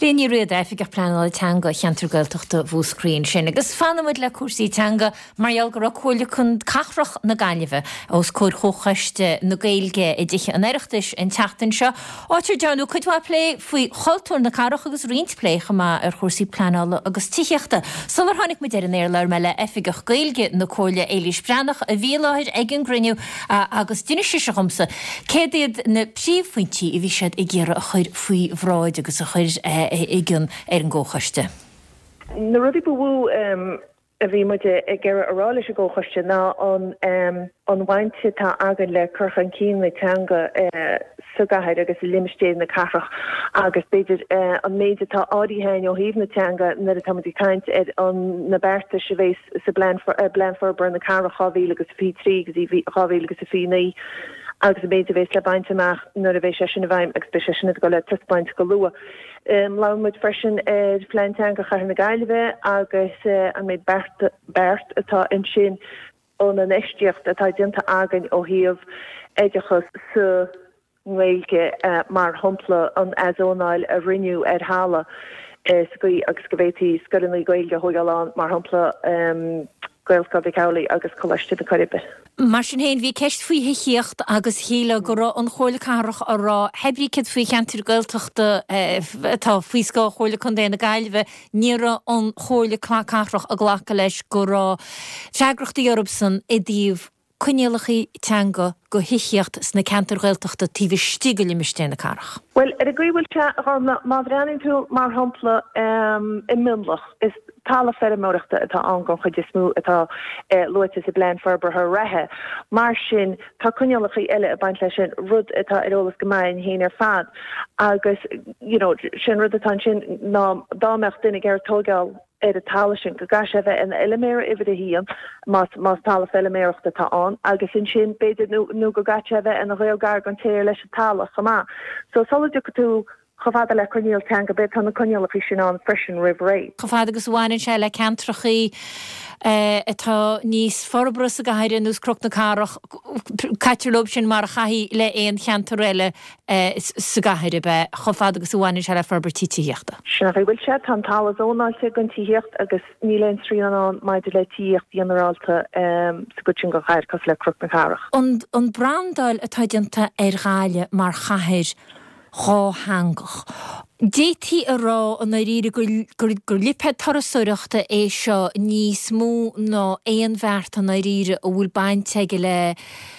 Liadh Ní Riada, Oifigeach Pleanála Teanga Cheantar Gaeltachta Mhúscraí ansin. Agus fanfaidh muid le cúrsaí teanga mar gheall go raibh Comhairle Cathrach na Gaillimhe os comhair Chomhchoiste na Gaeilge i dTithe an Oireachtais an tseachtain seo, áit ar dearnadh cuid mhaith plé faoi chultúr na cathrach agus roinnt plé chomh maith ar chúrsaí pleanála agus tithíochta. Sular tháinig muid ar an aer labhair mé le Oifigeach Gaeilge na Comhairle, Éilís Breathnach, a bhí i láthair ag an gcruinniú agus d'inis sise dhomsa céard iad na príomhphointí a bhí siad ag iarraidh a chur faoi bhráid agus a chur i gcion ar an gComhchoiste. Na rudaí ba mhó a bhí muid ag iarraidh a rá leis an gComhchoiste ná an bhaint atá againn le cur chun cinn na teanga sa gcathair agus i limistéir na cathrach agus b'fhéidir an méid atá áirithe againn ó thaobh na teanga nuair atá muid ag caint ar na beartais a bheas sa bPlean Forbartha na Cathrach 2023 go dtí 2029 agus an méid a bheas le baint amach nuair a bheidh sé sin i bhfeidhm agus beidh sé sin ag dul le taispeáint go luath. Labhair muid freisin ar Phlean Teanga Chathair na Gaillimhe agus an méid beart atá ansin an infheistíocht atá déanta againn ó thaobh oideachas sa nGaeilge, mar shampla an athzónáil a rinneadh ar thalamh sa gcaoi agus go bhféadfaí scoileanna Gaeilge a thógáil ann, mar shampla. Gaelscoil Mhic Amhlaigh agus Coláiste na Coiribe. Mar sin féin, bhí ceist faoi thithíocht agus shílfeá go raibh an Chomhairle Cathrach á rá, hé brí céard faoi cheantair Gaeltachta atá faoi scáth Chomhairle Contae na Gaillimhe, ní raibh an Chomhairle Cathrach ag glacadh leis go raibh freagrachtaí orthusan i dtaobh coinníollacha teanga go thithíocht sna ceantair Ghaeltachta taobh istigh de limistéar na cathrach. Bhuel, ar an gcaoi a bhfuil sé, a Ghormfhlaith, má bhreathnaíonn tú, mar shampla, i Mionlach, is talamh feirmeoireachta atá ann den chuid is mó atá luaite sa bplean forbartha reatha. Mar sin, tá coinníollacha eile ag baint leis sin, rud atá ar eolas go maith againn féin ar fad. Agus, you know, sin rud atá ansin ná dá mbeadh duine ag iarraidh tóigeáil ar an talamh sin, go gcaithfidh sé a bheith ina fheilméara uimhir a haon, más, más talamh feilméarachta atá ann, agus ansin, b'fhéidir, nó, nó go gcaithfidh sé a bheith ina ghaol gar don té ar leis an talamh chomh maith. So, sula dtiocfaidh tú chomh fada le coinníoll teanga, b'fhéidir, tá na coinníollacha sin ann freisin roimh ré. Chomh fada agus a bhaineann sé le ceantrachaí atá níos forbartha sa gcathair, ar nós Cnoc na Cathrach, caitear leo sin mar a chaithfí le aon cheantar eile sa gcathair, ab ea, chomh fada agus a bhaineann sé le forbairtí tithíochta. Sin an chaoi a bhfuil sé. Tá an talamh zónáilte don tithíocht agus níl aon srian ann maidir le tithíocht ghinearálta sa gcuid sin den chathair, cosúil le Cnoc na Cathrach. An brandáil atá déanta ar Ghaillimh mar chathair dhátheangach, d'fhéadfaí a rá i ndáiríre gur lipéad turasóireachta é seo níos mó ná aon bheart i ndáiríre a bhfuil baint aige le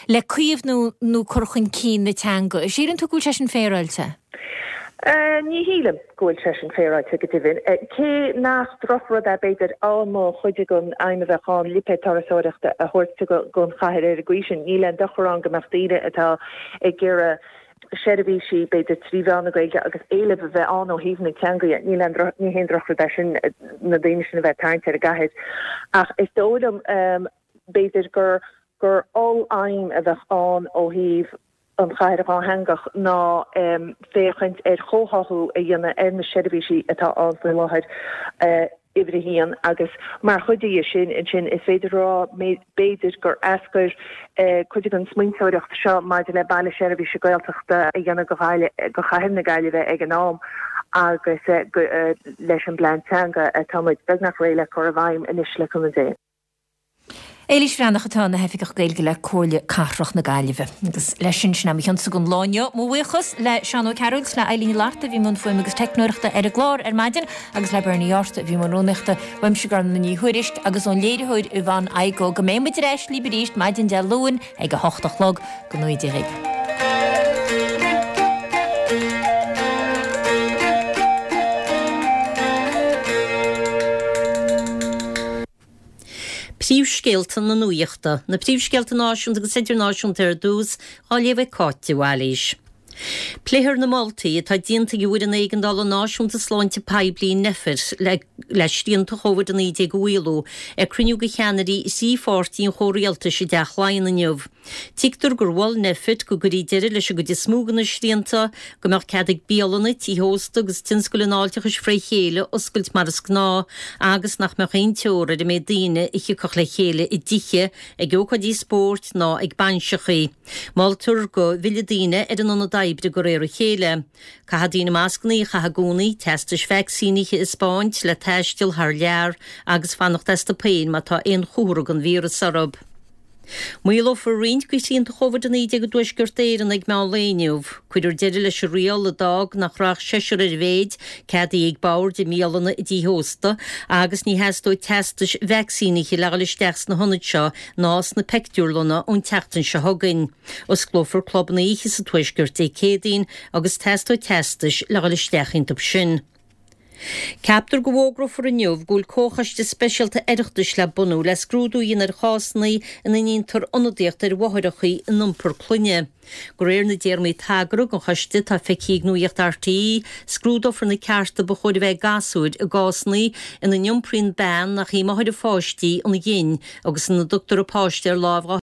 le caomhnú nó cur chun cinn na teanga. Síleann tú go bhfuil sé sin féaráilte? Ní shílim go bhfuil sé sin féaráilte, go deimhin. Cé nach drochrud é, b'fhéidir, dá mba chuid den aidhm a bheadh ann lipéad turasóireachta a thabhairt don chathair ar an gcaoi sin, níl aon dochar ann go mbeadh daoine atá ag iarraidh seirbhísí, b'fhéidir, trí mheán na Gaeilge agus éileamh a bheith ann ó thaobh na teanga dhe. Níl aon droch, ní haon drochrud é sin na daoine sin a bheith ag tarraingt ar an gcathair. Ach is dóigh liom, b'fhéidir, gur gur oll-aidhm a bheadh ann ó thaobh an chathair dhátheangach ná féachaint ar chomhtháthú a dhéanamh ar na seirbhísí atá ann faoi láthair, uimhir a haon, agus mar chuid dhe sin ansin is féidir a rá b'fhéidir gur eascair cuid den smaointeoireacht seo maidir le Baile Seirbhíse Gaeltachta a dhéanamh go Ghaillimh, go Chathair na Gaillimhe ag an am agus leis an bplean teanga atá muid beagnach réidh le cur i bhfeidhm anois le cúnamh Dé. Éilís Bhreathnach atá ina hOifigeach Gaeilge le Comhairle Cathrach na Gaillimhe. Agus leis sin, sin é mo chionsa don lá inniu. Mo bhuíochas le Seán Ó Cearúil 's le Eileen Ní Fhlatharta a bhí i mbun fuaime agus teicneoireachta ar an gclár ar maidin agus le Bernie Yortt a bhí i mbun rúnaíochta. Uaimse Gormfhlaith Ní Thuairisg agus ón léiritheoir Yvonne Igoe go mbeidh muid ar ais libh arís maidin Dé Luain ag a hocht a chlog. Go ngnóthaí Dia dhaoibh. Príomhscéalta na Nuachta. Na príomhscéalta náisiúnta agus idirnáisiúnta ar dtús, á léamh ag Cáit de Bhailís. Pléifear na moltaí atá déanta ag an bhFoireann Éigeandála Náisiúnta Sláinte Poiblí, Nphet, le le srianta Covid-19 a mhaolú ag cruinniú de cheannairí thrí pháirtí an chomhrialtais i dTeach Laighean inniu. Tuigtear gur mhol Nphet go gcuirfí deireadh leis an gcuid is mó de na srianta, go mbeadh cead ag bialanna, tithe ósta agus tionscail an fháilteachais fré chéile oscailt mar is gnáth agus nach mbeadh aon teora ar an méid daoine a thiocfadh le chéile i dtithe, ag ócáidí spóirt ná ag bainseachaí. Moltar go bhfillfeadh daoine ar an ionad oibre de réir a chéile. Caithfidh daoine mascanna a chaitheamh i gcónaí, teastais vacsaínithe a 'spáint le taisteal thar lear agus fanacht astu féin má tá aon chomhartha den víreas orthu. Maolófar roinnt de shrianta Covid-19 i dTuaisceart Éireann ag meán lae inniu. Cuirfear deireadh leis an riail a d'fhág nach raibh ach seisear ar a mhéid ceadaithe ag boird i mbialanna i dtithe ósta agus ní theastóidh teastais vacsaínithe le dhul isteach sna hionaid seo ná sna pictiúrlanna ón tseachtain seo chugainn. Osclófar clubanna oíche sa Tuaisceart Dé Céadaoin agus teastóidh teastais le dhul isteach iontu sin. Ceaptar go bhfógrófar inniu go bhfuil comhchoiste speisialta Oireachtais le bunú le scrúdú a dhéanamh ar chásanna ina ndéantar ionadaíocht ar mháithreacha in iompar clainne. De réir na dtéarmaí tagartha don choiste atá feicthe ag Nuacht RTÉ, scrúdófar na cearta ba chóir a bheith ag gasúir i gcásanna ina n-iompraíonn bean nach í máthair a pháistí an ghin agus ina dtugtar a páiste ar láimh dá.